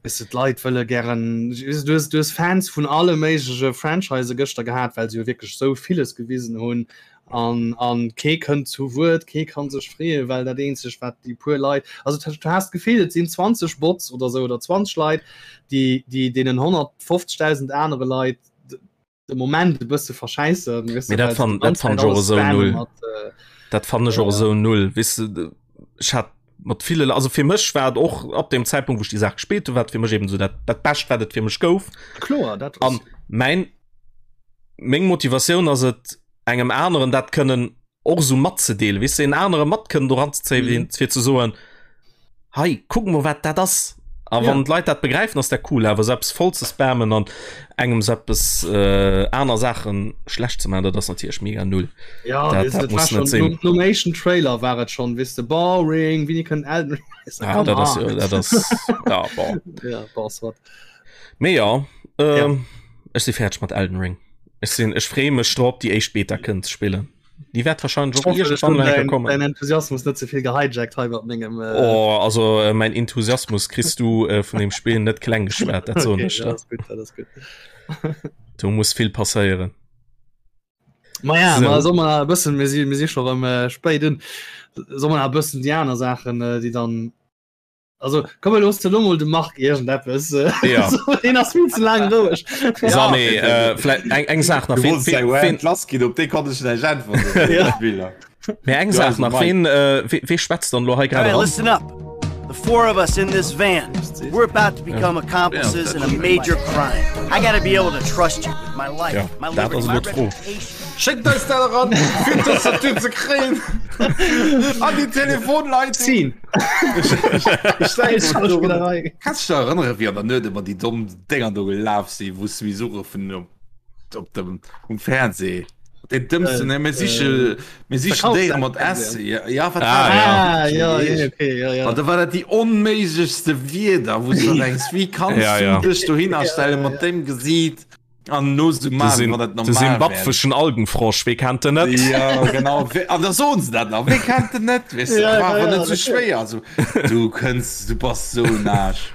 Weess de, d'Leit wëlle gären, weess de, du hues, du hues Fans vun alle méigleche Franchise gëschter gehat, well se jo wierklech esou villes gewisen hunn an, an kee kënnt zu Wuert, kee kann sech freeën, well dat eenzegt wat déi puer Leit, also du has d'Gefill et sinn 20 Bots oder esou oder 20 Leit, déi, déi deenen 150.000 anere Leit de Moment e bësse verschäissen. Weißt du, dat fan, dat fan och esou null. Mat, äh, dat fan ech och esou null. Weißt du, ech hat mat ville also fir mech war et och ab dem Zeitpunkt wo ich die Saach gespielt hu, war fir mech eben so dat dat bescht wat et fir mech gouf. Kloer dat an mein meng Motivatioun ass et engem aneren dat kënnen och esou matzedeelen, weess de, en anere mat kënnen doran ze zéien, mhm. fir ze soen, hei, kuck mol, wat dat ass. A wann ja. d'Leit dat begräifen, ass dat cool, awer selbst voll ze spammen an engem eppes äh, aner Saachen schlecht ze machen, dat ass natierlech mega null. Ja, dat, dat, dat muss net sinn. Nom éischten Trailer war et schon, weess de, boring, wéini kënnt Elden Ring? Ah, dat ass, dat ass, ja, bon. Ja, boss, wat. Mee ja, ähm, ja. ech si fäerdeg mat Elden Ring. Ech sinn, ech freeë mech drop, déi éischt Beta kënnen ze spillen. Déi wäert wahrscheinlech och iergendwann eng Kéier kommen. Dein Enthusiasmus net ze vill gehijackt hei mat mengem. Äh oh, also äh, mein Enthusiasmus kriss du äh, vun dem Spiel net kleng geschwat, dat soen ech der. Okay, dat ass gutt, dat ass gutt. Do muss vill passéieren. Ma ja, so. ma soll man e bëssen, mir si, mir si scho rëm äh, spéit un, soll man e bëssen déi aner Saachen, äh, déi dann Also komm mir loosse lo mol de Marc iergendeppes. Ja. Deen ass vill ze laang roueg. So, nee, äh, vläicht eng, eng Saach nach. Du wolltest eng Rant lass ginn, op déi konnt ech näischt äntweren. Ja. Spiller. Mee eng Saach nach, ween, äh, wee, wee schwätzt dann lo hei grad All right, eran? listen up. The four of us in this van, we're about to become accomplices in a major crime. I gotta be able to trust you with my life, Ja, my dat liberty, ass my elo d'Fro. reputation. Schéckt eis dat eran, fir d'Tastatur ze kréien an déi Telefonleitung. Scene. Kanns du dech erënnere wéi an der Nuet ëmmer déi domm Dénger do gelaf sinn, wou s du misst uruffen op dem um Fernseh? Deen dëmmsten, ne, mir siche mir sichen Déiere mat S. Ja, ja, wat war Ah, dat? ja. Ah, ja, ja, okay, ja, ja. An da war dat déi onméiglechste Wierder, wou s du denkst, wéi kanns Ja, du ja. dech dohinner stelle mat deem Gesiit? An no so De machen, Sinn- wann dat de normal wär. simbabweschen Algenfrosch, wee kennt den net? Ja, genau. We- An da soen se dat nach. Wee kennt den net? Weißt du, Ja, war awer ja, net ja, so schwéier. Also, du kënns, du bass so en Aarsch.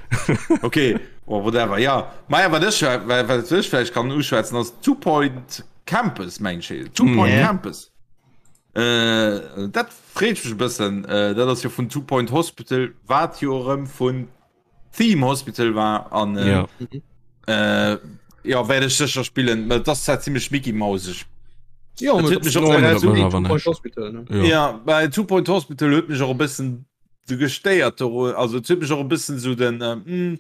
Okay, oh, whatever. Ja, ma ja, wat ech, wat wat ech vläicht kann uschwätzen, ass Two Point Campus, meng ech. Two Point Ja. Campus. Äh, dat freet mech e bëssen. Äh, dat ass jo vun Two Point Hospital, wat jo erëm vun Theme Hospital war an äh, ja. äh, ja werde ich sicher spielen das ist ziemlich Mickey Mausig ja, mich Hospital, ne? ja. ja bei Two Point Hospital huet mich auch ein bisschen so gestéiert also huet mich auch ein bisschen so den äh, mm,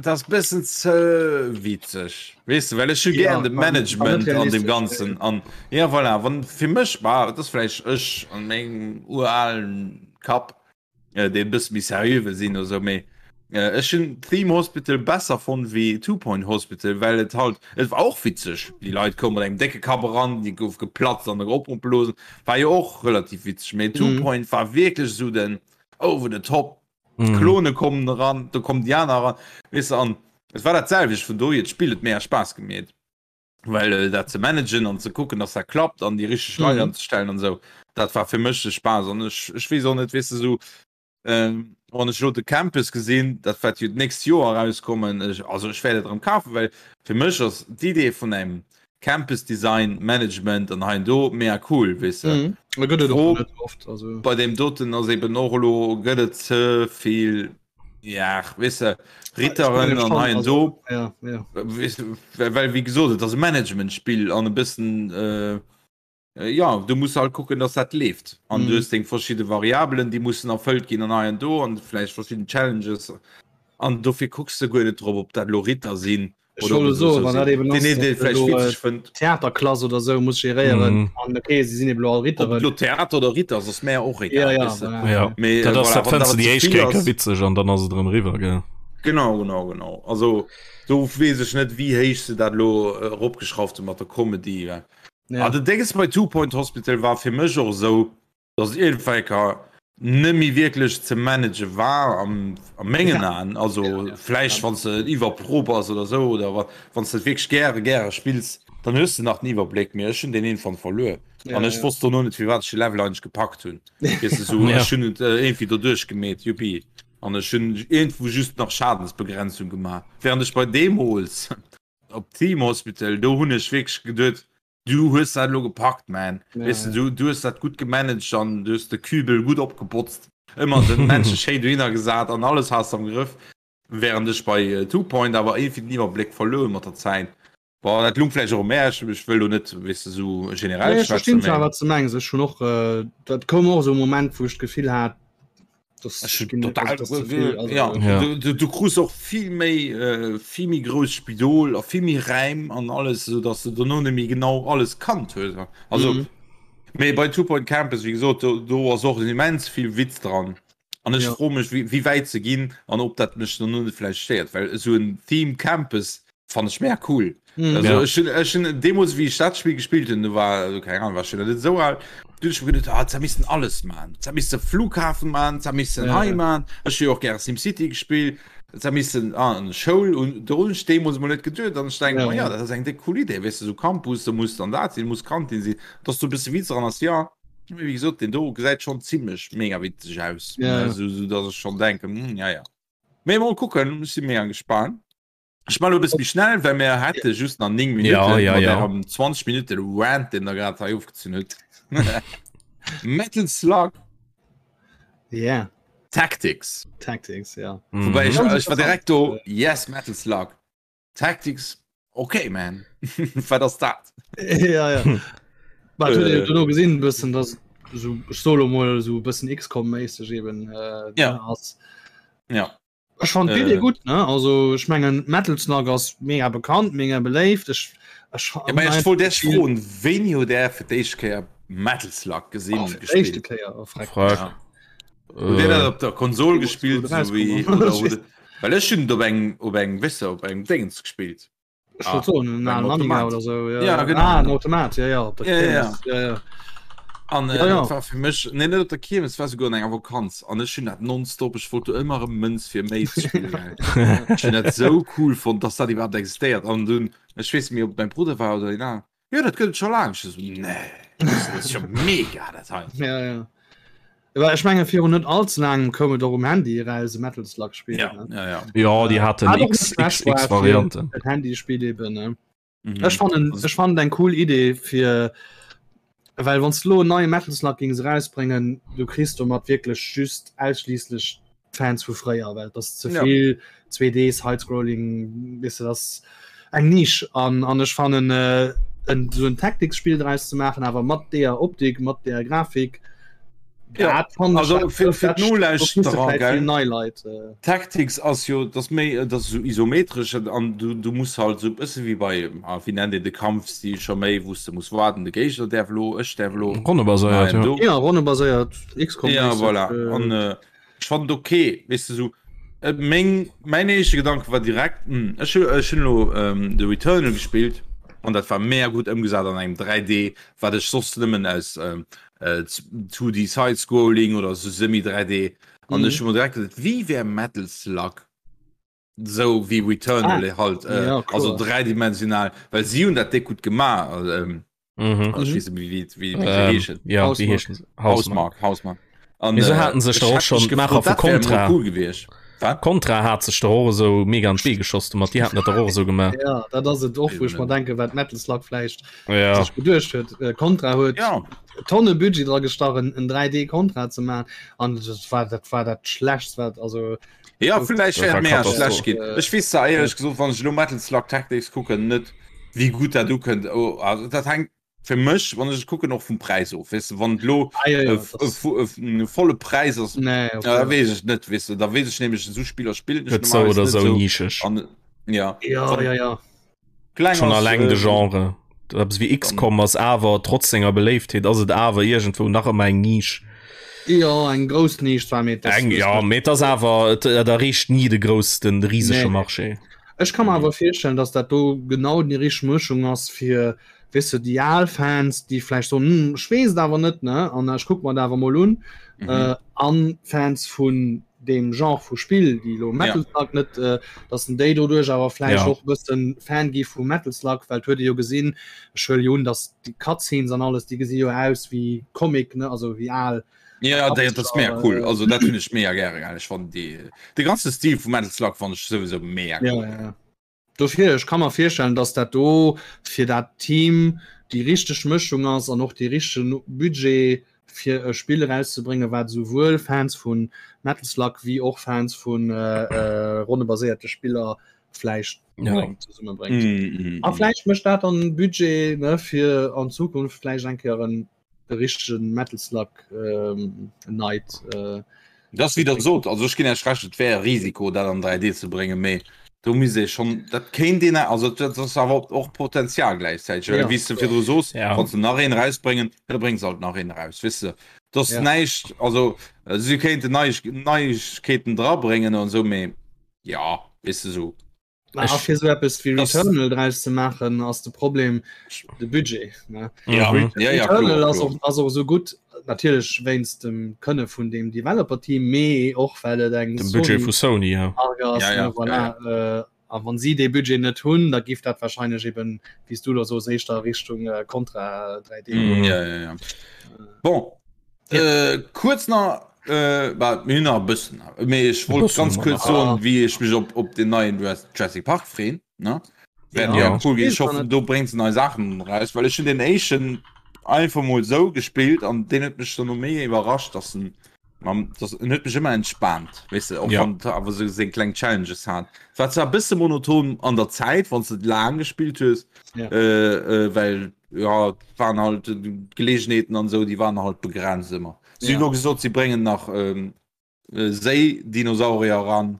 das bisschen ze witzeg weißt du, well ech ja, gern de Management an dem ganzen an ja voilà, wann fir mech war das vielleicht ech an mengem uralen Kapp äh, dee bësse méi seriö wëll sinn oder sou, mee äh, ech hunn Theme Hospital besser fonnt wéi Two Point Hospital, well et halt, et war och witzeg, déi Leit koume mat engem décke Kapp eran, déi gouf geplatzt an opgeblosen, war jo och relativ witzeg, mee Two mhm. Point war wierklech sou den over the top, mhm. d'Klone kommen eran, do kommen déi aner eran, weess de, an et war dat selwecht, vun dohier d'Spill huet mega Spaass gemeet. well äh, dat ze managen an ze kucken dass dat klappt an die richtig Leit mhm. anzestellen an so dat war fir mech de Spaß an ech, ech wees och net weißt du so ähm, wann ech lo de Campus gesinn dat wat jo d'nächst Joer rauskommen ech, also ech werde dran kaufen well fir mech ass d'Idee vun engem Campus Design Management an hein do mega cool weißt du mhm. gëtt et och net oft also bei dem doten ass eben och lo gëtt et ze vill Ja, weess de, Ritteren an hei an do. Ja, ja. Weess de, well wéi gesot, et ass e Managementspill an e bëssen, äh, ja, du muss halt kucken, dass dat leeft. An mm. du hues deng verschidde Variabelen, déi mussen erfëllt ginn an hei an do an vläicht verschidden Challenges. An dofir kucks de guer net drop, ob dat lo Ritter sinn Ech wollt soen, wann dat eben ass, datt elo Theaterklass oder sou muss geréieren mm. an okay, si sinn eben all Ritteren. Lo Theater oder Ritter ass mär och egal. Ja, ja, voilà. ja. Mee, dat ass, dat fënns du déi éischt Kéier witzeg an dann ass et erëm eriwwer, gell? Genau, genau, genau. Also do weess ech net, wéi héich se dat elo eropgeschrauft hu mat der Comedy. Ja. Ah, den Dénges bei Two Point Hospital war fir mech och esou, dass iergendwelker nëmmi wierklech ze manage war am a mengen Aen, also vläicht wann s de iwwerpro bass oder sou oder wa wann s de et wierklech gäre gäre spills, dann hues de nach den Iwwerbléck, mee ech hunn deen iergendwann verluer an ech wosst dono net firwat ech de Level eigentlech gepackt hunn, weess de sou, ech hunn et iergendwéi doduerch gemeet, juppi. An ech hunn iergendwou just nach Schadensbegrenzung gemaach. Während ech bei deemools op Theme Hospital, do hunn ech wierklech geduet, du hues dat elo gepackt, man. Ja, Weess de, du, du hues dat gutt gemanagt an du hues de Kübel gutt opgebotzt, ëmmer den Männche schéin dohinner gesat an alles has de am Grëff. Während ech bei Two Point awer iergendwéi den Iwwerbléck verluer hunn mat der Zäit. Bon, dat lung vläicht och u mär, ech, ech wëll do net, weess de, esou generell Nee, ech schwätzen, verstinn zwar mä wat du mengs. Ech hunn och, dat koum och esou e Moment, wou ech d'Gefill hat, dass ech hunn ginn, total, also, dass ze vill, also, ja, Ja. du, du, du krus och vill méi, vill méi grouss Spidol a vill méi Räim an alles, esou dass de dono net méi genau alles kannt hues. Also, Mhm. mee bei Two Point Campus, wéi gesot, do, do ass och immens vill Witz dran. An ech Ja. froe mech, wéi, wéi wäit se ginn an ob dat mech dann net vläicht stéiert, well esou en Theme Campus fannen ech mega cool. Mhm. Also Ja. ech hunn, ech hunn deemools, wéi ech dat Spill gespillt hunn, do war, also keng Ahnung, war ech schon net esou al, du hunn ech mir geduet, ah, se missten alles man, se misste Flughafen man, se missten Ja, hei ja. man. Ech hu jo och gäre SimCity gespillt, se missten ah, an Schoul un, do hunn ech deemools emol net geduet an ech denke Ja, mer, ja, ja. dat ass eng déck cool Idee, weess de, esou Campus, do muss dann dat sinn, muss Kantin sinn, dass do e bësse Witz dran ass, ja. Wéi gesot, den do gesäit schon zimmlech mega witzeg aus. Ja. So, so dass ech schon denken, hm, ja, ja. Mee mol kucken, ech si mega gespannt. Ech man lo e bësse méi schnell, well mir hätte just nach 9 Minuten Ja, ja, mat ja. ärem 20 Minuten Rant, den der grad hei ofgezunn hutt. Metal Slug Yeah, Tactics. Tactics, ja. Mhm. Wobei ich, Ganz ich war direkt do, interessant. yes, Metal Slug. Tactics, okay, man. Wat ass dat? ja, ja. Bah, huet Äh. äh, duerno gesinn bëssen, dass so ech solo mol so bëssen XCOM-méisseg eben äh, Ja. ass. Ja. Ech fand d'Idee Äh. gutt, ne? Also ech mengen Metal Slug ass mega bekannt, mega beléift. Ech, ech, Ja, mä ech wollt dech froen, wéini hutt Där fir d'éischt Kéier Metal Slug gesinn, oh, fir d'éischte gespillt? Kéier, oh, freck. Frag. Ja. Hutt Dir dat op der Konsol gespillt, Deemools, sou wou wéi, et oder rauskomm hutt ass. Well ech hunn et op engem, op engem, weess de, op engem Déngens gespillt. Ech wollt soen, en op engem alen Amiga Automat. oder sou, ja. Ja, genau. Ah, en Automat, ja, ja, op der Ja, ja, ja. Kiermes, ja, ja. An äh, Ja, ja. dat war fir mech, nee, net op der Kiermes, et war souguer an enger Vakanz. An ech hunn dat nonstop, ech wollt do ëmmer erëm Mënz fir méi ze spillen, gell. Ech hunn dat sou cool fonnt, dass dat iwwerhaapt existéiert. An dunn, ech weess net méi, ob et mäi Brudder war oder een aneren, Jo, dat gëtt et scho laang. Ech esou, nee, dat ass jo mega, dat hei. Ja, ja. Aber ech menge virun net allze laangem koum et och um Handy eraus, e Metal Slug Spiel. Ja, ne? ja, ja. Ja, déi haten Hat och X, net X, schlecht war X fir Varianten. Et Handyspiel eben. Ne? Mhm. Ech fannen, Also- ech fannen eng cool Idee fir well wann lo neie Metal Slug gings rausbringen, du kriss domat wierklech just ausschließlech Fans vu fréier, well das ze Ja. vill 2D Sidescrolling wis du das eng Nisch an an ech fannen äh, en so en Tactics-Spiel draus ze maachen, awer mat deeër Optik, mat deeër Grafik. Ja, dat fannen ech- also dat- fir- fir dat- d'Nolauschterer, dat kriss du vläicht gell? vill nei Leit. Äh, Tactics ass jo, dat ass méi, dat ass esou isometresch an du, du muss halt esou e bësse wéi bei, ah, wéi nennt een de Kampfstil scho méi, wou s de muss waarden, de Géigner däerf elo, ech däerf elo, Ronnebaséiert, nein, ja. du. ja, ronnebaséiert, XCOM. Ja, voilà. An äh, ech fand et okay, weess de, sou, äh, meng, mäin éischte Gedanke war direkt, hm, ech hu, ech hunn elo ähm, de Returnal gespillt an dat war mega gutt ëmgesat an engem 3D, wat ech soss nëmmen aus ähm, äh, 2D Side-Scrolling oder sou semi-3D an Mhm. ech hu mer direkt geduet, wéi wär Metal Slug sou wéi Returnal Ah, halt, äh, ja, also kloer. dräidimensional, well si hunn dat déck gutt gemaach, ähm, Mhm. also ech weess net méi, wéi, wéi, wéi se Ähm, heeschen. ja, wéi Housemarque. heeschen se? Housemarque. Housemarque, Housemarque. An, Mee se äh, haten sech ech doch och hätt schon mech d'Maacher gefrot, vu dat wär emol Contra. cool gewiescht. Wat? Contra hat sech doch och esou mega an d'Bee geschoss domat, déi haten dat doch och esou gemaach. Ja, dat ass et och, wou ech mer Eben. denken, wat Metal Slug vläicht Ja. sech geduecht huet. Äh, Contra huet Ja, Tonne Budget dra gestach, en en 3D Contra ze maachen an dat war dat war dat schlechtst wat also ja, vläicht Dat wär war et mega Katastroph. schlecht ginn. Ech weess zwar éierlech gesot, wann ech elo Metal Slug Tactics kucken, net wéi gutt dat ukënnt. Oh, also dat hänkt fir mech, wann ech et kucken, och vum Präis of. Weess de, wann et elo ah, ja, ja, e das, e volle Präis ass, nee, okay. da weess ech net, weess de, da weess ech nämlech, esou Spiller spillen ech Gëtt sou normalerweis oder net sou esou. nischeg. An ja, Ja, wann ja, ja. kleng Schon ass, alleng de äh, Genre. Eppes wéi dann XCOM ass awer trotz senger Beléiftheet ass et awer iergendwou nach ëmmer eng Nisch. Ja, eng grouss Nisch zwar, mee das Eng, ist ja, net. mee et ass awer, et et erreecht ni de grouss, den risege Nee. Marché. Ech ka mer awer virstellen, dass dat do genau déi richteg Mëschung ass fir, weess de, déi al Fans, déi vläicht soen, hm, ech weess et awer net, ne, an ech kuck mer et awer mol un, mhm. äh, an Fans vun deem Genre vu Spill, déi elo Ja. Metal Slug net, äh, dass en déi doduerch awer vläicht Ja. och e bëssen Fan gi vu Metal Slug, well et huet ee jo gesinn, ech huele jo un, dass déi Cutscenes an alles, déi gesi jo aus wéi Comic, ne, also wéi al. Ja dat ass mega cool also dat hunn ech mega gäre gell ech fannen déi de ganze Stil vu Metal Slug fannen ech souwisou mega cool. Ja, ja, ja. Dofir ech ka mer virstellen, dass dat do fir dat Team déi richteg Mëschung ass an och dee richtegen Budget fir e Spill erauszebréngen, wat esouwuel Fans vu Metal Slug wéi och Fans vu ronnebaséierte Spiller vläicht ja. zesummebréngt. Mm, mm, a mm. vläicht mécht dat dann Budget ne, fir an Zukunft vläicht eng Kéier en de richtegen Metal Slug ähm, Night. Äh, das wieder so also ich ginn Iech recht et wär e Risiko dat an 3D ze bréngen méi do mis ee schon dat kéint een also dat ass awer och Potenzial gläichzäiteg well ja, wéi s de virdru soos ja. wann se nach een rausbréngen da bréngen se halt nach een raus weess de dat ass ja. näischt also äh, si kéinten Neiegkeeten drabréngen an sou méi ja weess de sou A fir sou eppes wéi Returnal draus ze maachen ass de Problem de Budget ne? Ja, mhm. ja, ja, Returnal ass och, ass och sou gutt natierlech wéinst dem Kënne vun dem Developer-Team, mee och well et eng dem Budget vu Sony ja. ass, ja, ja, voilà. ja, ja. Äh, a wann si dee Budget net hunn, da giff dat wahrscheinlech eben wéi s du da soos éischter Richtung äh, Contra 3D. Mm, ja, ja, ja. Bon, Äh, kuerz nach äh, bah, mir hunn nach e bëssen mee ech wollt ganz kuerz soen wéi ech mech op op den neien Jurassic Park freen ne ja. ja cool ginn. Ech hoffen do bréngt se nei Saachen raus well ech hunn den éischten einfach mol sou gespillt an deen huet mech dann no méi iwwerrascht dass en mam dass en huet mech ëmmer entspaant weess de och ja. wann awer sou seng kleng Challenges hat war zwar e bësse monoton an der Zäit wann s de laang gespillt hues ja. äh, äh, well ja waren halt Gelegenheeten an sou déi waren halt begrenzt ëmmer. Si hunn och gesot si bréngen nach ähm, äh, Séidinosaurier ran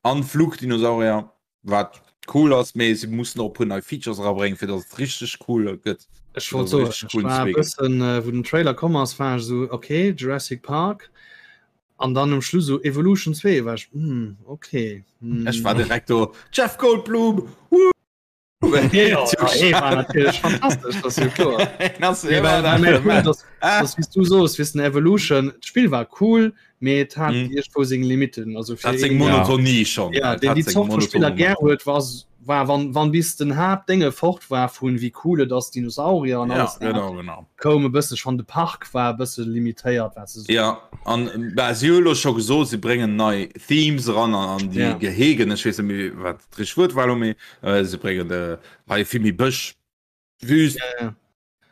an Flugdinosaurier, wat cool ass, mee si mussen och e puer nei Features erabréngen, fir datt et richteg cool gëtt. Ech wollt soen, ech war e bëssen, äh, wou den Trailer komm ass, war ech esou, okay, Jurassic Park. An dann um Schluss so Evolution 2 war ech, hm, okay. Hm. Ech war direkt do, Jeff Goldblum! Woo! Du sos wissen Evolution Spiel war cool mee hat mhm. wo seg Limiten also seg Monotonie schon ja, den die Spieler ger huet was war wann wann bis den Hab Dinge fort war vun wie coole das Dinosaurier an ja, genau, genau. koum e bësse schon de Park war bësse limitéiert wat se ja an si scho gesot sie bringen nei Themes ran an an die ja. Gehegen ech weess net méi wat Richteg Wuert war lo méi äh, se bréngen äh, hei vill méi Bësch, Wüst, ja, ja.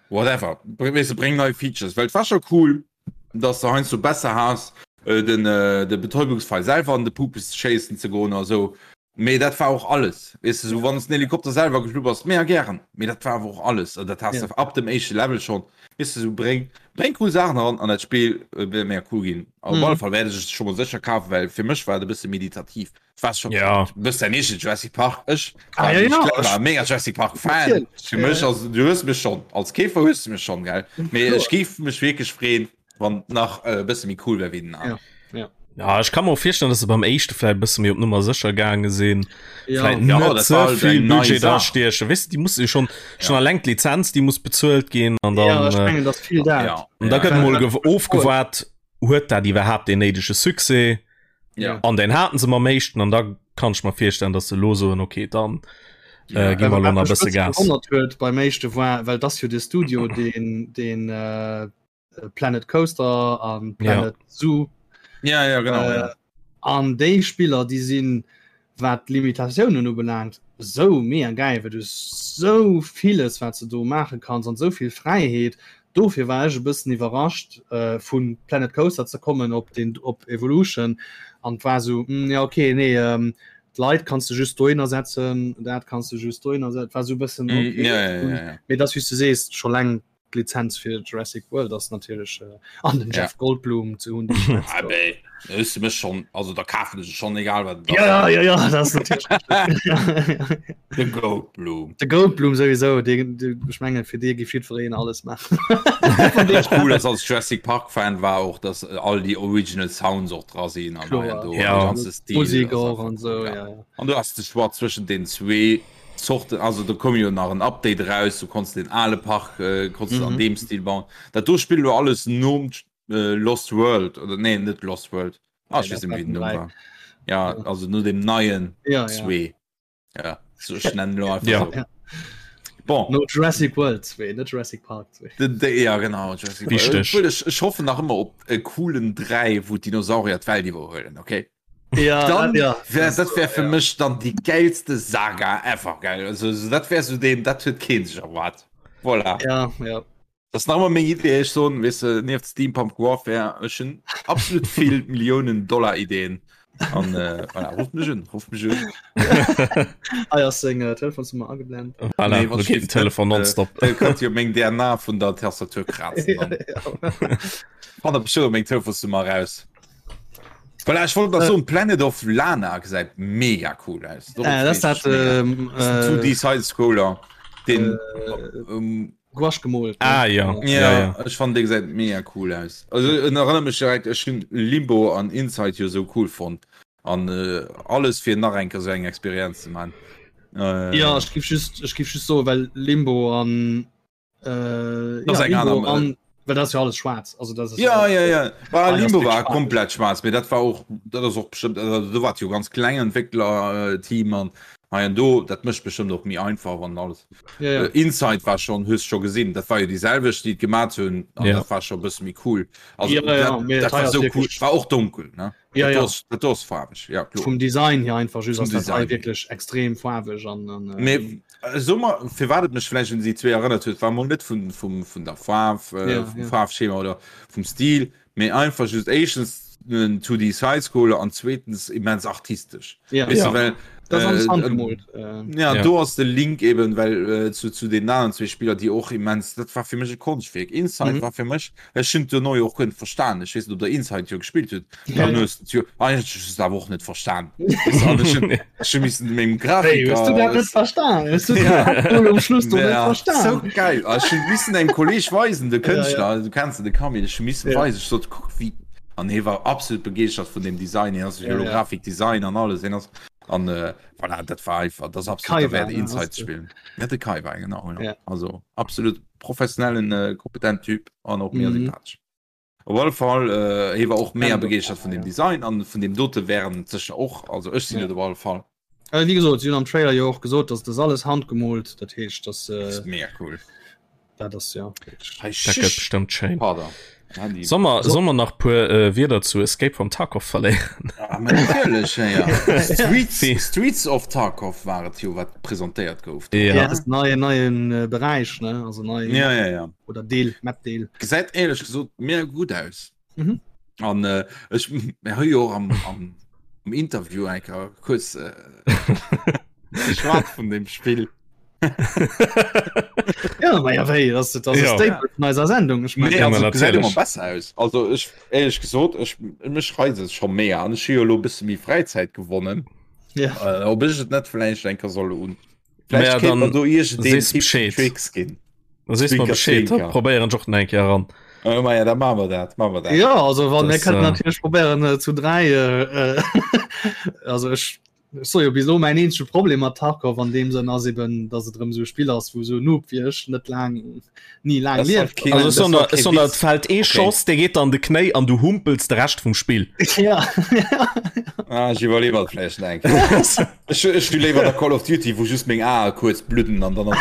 whatever. Weess de, bréng nei Features, well et war scho cool, dass de heiansdo besser has äh, den, äh, de Betäubungspfeil selwer an de Pupes schéissen ze goen a sou. Mee dat war och alles. Weess de, sou wann s den Helikopter selwer geflu bass, mega gären, mee dat war awer och alles. An dat has Ja. de ab dem éischte Level schonn. Weess de, sou bréng, bréng cool Saachen eran an dat Spill äh, wäert mega cool ginn. Op Mhm. alle Fall wäert ech et scho mol sécher kafen, well fir mech war et e bësse meditativ. Was schon ja bist der nicht Jurassic Park ich ah, ja, ja. war mega Jurassic Park Fan für mich also du hörst mich schon als Käfer hörst du mich schon geil mir ich gief mich wirklich freuen wann nach äh, bisschen wie cool wär wie den ja. Ja. Ja, ich kann mir auch vorstellen, dass se beim éischte vielleicht bësse méi op Nummer sécher gaange sinn. Ja. Vielleicht Ja, net dat ze war halt vill eng nei Budget Saach. da stiechen. Weißt du, die muss schon schon Ja. alleng d'Lizenz, die muss bezuelt ginn an dann ja, ich äh, mengen, dass viel dat. ja. und da ja. gëtt mol gew- ofgewaart, huet dat iwwerhaapt den néidege Succès? Ja. An den haten se mam éischten an da kann ech mer virstellen, dass se lo soen, okay, dann äh, gi mer lo nach e bësse Gas. Gewonnert huet beim éischte war, well das jo de Studio den den äh, Planet Coaster an Planet ja. Zoo ja, ja, genau, äh, ja. an déi Spiller déi sinn wat d'Limitatiounen ubelaangt sou mega gäil, well du hues sou villes wat s de do maache kanns an sou vill Fräiheet. Dofir war ech e bëssen iwwerrascht vu Planet Coaster ze kommen op den op Evolution an war sou hm, ja okay nee d'Leit kanns de just dohinner setzen, dat kanns de just dohinner setzen, war sou e bëssen Mm, okay. ja, ja, ja, ja. Mee dass wéi s du sees scho laang D'Lizenz fir Jurassic World ass natierlech äh, an den Ja. Jeff Goldblum ze hunn. Ah, bäh, da hues du mech schon, also da kafen ech et schon, egal wat et ass. Ja, ja, ja, dat ass natierlech. De Goldblum. De Goldblum sowieso, dee, dee, ech mengen, fir dee géif jiddwereen alles maachen. Wat cool ass als Jurassic Park Fan war och, dass all déi Original Sounds och dra sinn an Kloer. hei an do, Ja. de ganze Stil Musik ass och einfach an cool, sou, ja. ja, ja. An du has de Choix zwëschen den zwee Zorten, also do koum jo nach en Update eraus, du konns den ale Park äh, konns du an Mhm. deem Stil bauen. Dat do spillt elo alles nom äh, Lost World oder nee net Lost World. Ah, Nee, ich weess dat net méi wéi den war Numm den war. Ja, also no dem neien Ja, ja. zwee. Ja, so, ech nennen elo einfach Ja. so. Ja. Bon. No Jurassic World 2, net Jurassic Park 2. De, de, ja genau Jurassic World. Wichteg. Obwohl, ech, ech hoffen nach ëmmer op e coolen 3, wou d'Dinosaurier d'Welt iwwerhuelen, okay? Ja, Dann ja. wär, dat wär fir mech dann déi geilste Saga ever, gell? Also, so, dat wär so deen, dat huet keen sech erwaart. Voilà. Ja, ja. Dat ass nach ëmmer meng Idee, ech soen, weess de, nieft Steampunk Warfare, ech hunn absolut vill Milliounen Dollar Ideen. An äh, voilà, rufft mech un, rufft mech un. Hei ass seng äh, Telefonsnummer ageblend. Voilà, Nee, wann do geet den Telefon äh, nonstop. Dir kënnt jo meng DNA vun der Tastatur krazen. Dann. Fannt der bestimmt meng Telefonsnummer raus. Voilà, ech wollt nach soen, Planet of Lana gesäit mega cool aus. Dorop Äh, das freet dat ech mega. ähm, Das ist ein äh, 2D Sidescroller, den äh, ähm, Gouache gemoolt. ne? Ah ja, Ja, ja, ja. ech fand dee gesäit mega cool aus. Also en erënnert mech direkt, ech hunn Limbo an Inside jo sou cool fonnt an äh, alles fir nach eng Kéier sou eng Experienz ze man. Äh, Ja, ech giff just ech giff just soen, well Limbo an äh, Das ja, eng Limbo aner- an well dat ass jo alles schwaarz. Also dat ass Ja, ja, ja. War, Ah, das Limbo ist war schwarz. komplett schwarz, mee dat war och dat ass och bestimmt also, do war jo ganz kleng Entwickler-Team an hei an do, dat mécht bestimmt och méi einfach an alles. Ja, ja. Äh, Inside war schon hues scho gesinn, dat war jo déi selwecht, déi et gemat hunn an Ja. dat war scho bësse méi cool. Also, Ja, ja, dat, mee dat hei war ass so cool, wirklich- war och dunkel ne? Ja, dat ja. ass, dat ass faarweg, ja kloer. Vum Design hier einfach just Vum ass dat hei Design. wierklech extrem faarweg an, an äh, Mee äh, so mal, firwat et mech vläicht un déi zwee erënnert huet, war mol net vun, vum, vun der Faarf, äh, Ja, vum ja. Faarfschema oder vum Stil, mee einfach just éischtens en 2D Sidescroller an zweetens immens artistesch. ja. Weißt Ja. du, well, Das ass alles äh, handgemoolt. Äh, Ja, Ja. do ass de Link eben well äh, zu, zu den aneren zwee Spiller, déi och immens, dat war fir mech e Konschtwierk. Inside Mhm. war fir mech, ech hunn duerno jo och guer net verstan. Ech weess net, ob der Inside jo gespillt hutt. Ja, Dann ja. hues du jo eigentlech hues du awer och net verstan. Weißt du, an ech hunn ech hu missen mengem Hey, hues du dat Grafiker net verstan? Hues du Ja. dat um Schluss do net Ja, verstan? so geil. Ah, Ech hunn missen engem Kolleg weisen, de Ja, ja. Kënschtler, du kenns de Camille, ech hu missen Ja. weisen, ech sot, kuck wéi an hie war absolut begeeschtert vun dem Design, hien ass Ja, ja. Holographic Design an alles, hien ass an äh, voilà, dat war einfach, das absolut Kai der Wert war, ne, Inside ass ze spillen. Ja, de Kai war genau, ja. Ja. Also absolut professionellen äh, kompetent Typ an och mega Mhm. sympathesch. Op alle Fall äh, hie war och mega Random, begeeschtert vun dem ja. Design an vun dem dote wären sécher och, also ech sinn Ja. et op alle Fall. Äh, wie gesot, si hunn am Trailer jo och gesot, dass das alles handgemoolt, dat heescht, dass Das äh, ist mega cool. dat ass ja. Hey, Dat gëtt bestëmmt schéin. Pardon. Handy. Soll mer, So- soll mer nach puer äh, Wierder zu Escape from Tarkov verléieren? Ah, ma natierlech, ja, ja. Streets, Si. Streets of Tarkov war et jo, wat presentéiert gouf. Ja. Ja, das ist neue neuen äh, Bereich ne also nei Ja, ja, ja. oder Deel Map Deel. Gesäit éierlech gesot mega gutt aus. Mhm. An äh, ech mir hu jo och am, am, am Interview eng Kéier kuerz äh, geschwat vun dem Spill. Ja, ma ja, wéi, das, das Ja. ja. Staple vun eiser Sendung. Ich mein, Nee, Ja, also, ma gesäit ëmmer natierlech. besser aus. Also ech éierlech gesot, ech mech reizt et scho mega an ech hu jo elo e bësse méi Fräizäit gewonnen. ja. Äh, ob ech et net vläicht eng Kéier soll un. Mä Vläicht kéint dann mer do iergendeen sees Tipps Bescheed. Tricks ginn. Da sees mer Zwinker, Bescheed, da zwinker. probéieren ech och nach eng Kéier eran. Äh, ma ja, da maache mer dat, maache mer dat. Ja, also wann mir Das, kënnen äh, natierlech probéieren äh, zu dräi äh, äh, also ech ech so jo bis elo mäin eenzege Problem mat Tarkov an deem Sënn ass eben, dass et erëm sou e Spill ass, wou sou Noob wéi ech net laang ni laang Das war lieft. keen- Also das sondern, war kee sondern Witz. et fällt ee Okay. Schoss, dee geet an de Knéi an du humpels de Rescht vum Spill. Ja. Ah, ech iwwerleewer et vläicht nach eng Kéier. Ech, ech hu léiwer der Call of Duty, wou just meng Ae kuerz bludden an dann ass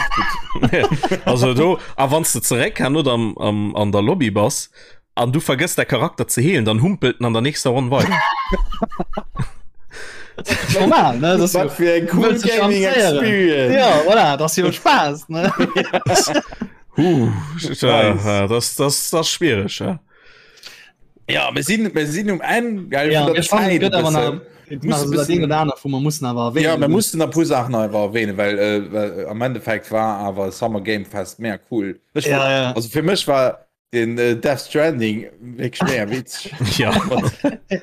et gutt. Also do, a wann s de zeréck herno am, am, an der Lobby bass an du vergëss däi Charakter ze heelen, dann humpelt en an der nächster Ronn weider. Normal, ne? Das ist Wat fir eng cool wëlls dech Gaming amüséieren. Experience. Ja, voilà, das ist jo Spaß, ne? Huh, äh, das, das, das ist schwierig, ja. Ja, mir sinn, mir sinn um Enn gell, Ja, vun der mir fannen, Zäit et gëtt e awer nach, bëssen. et Muss nach e so dat bëssen- een oder aner, wou mer mussen awer erwähnen. Ja, mir mussten e puer Saachen einfach erwähnen, well, äh, well am Endeffekt war awer Summer Game Fest mega cool. Ech Ja, war, ja. Also fir mech war den äh, Death Stranding wierklech mega witzeg. Ja.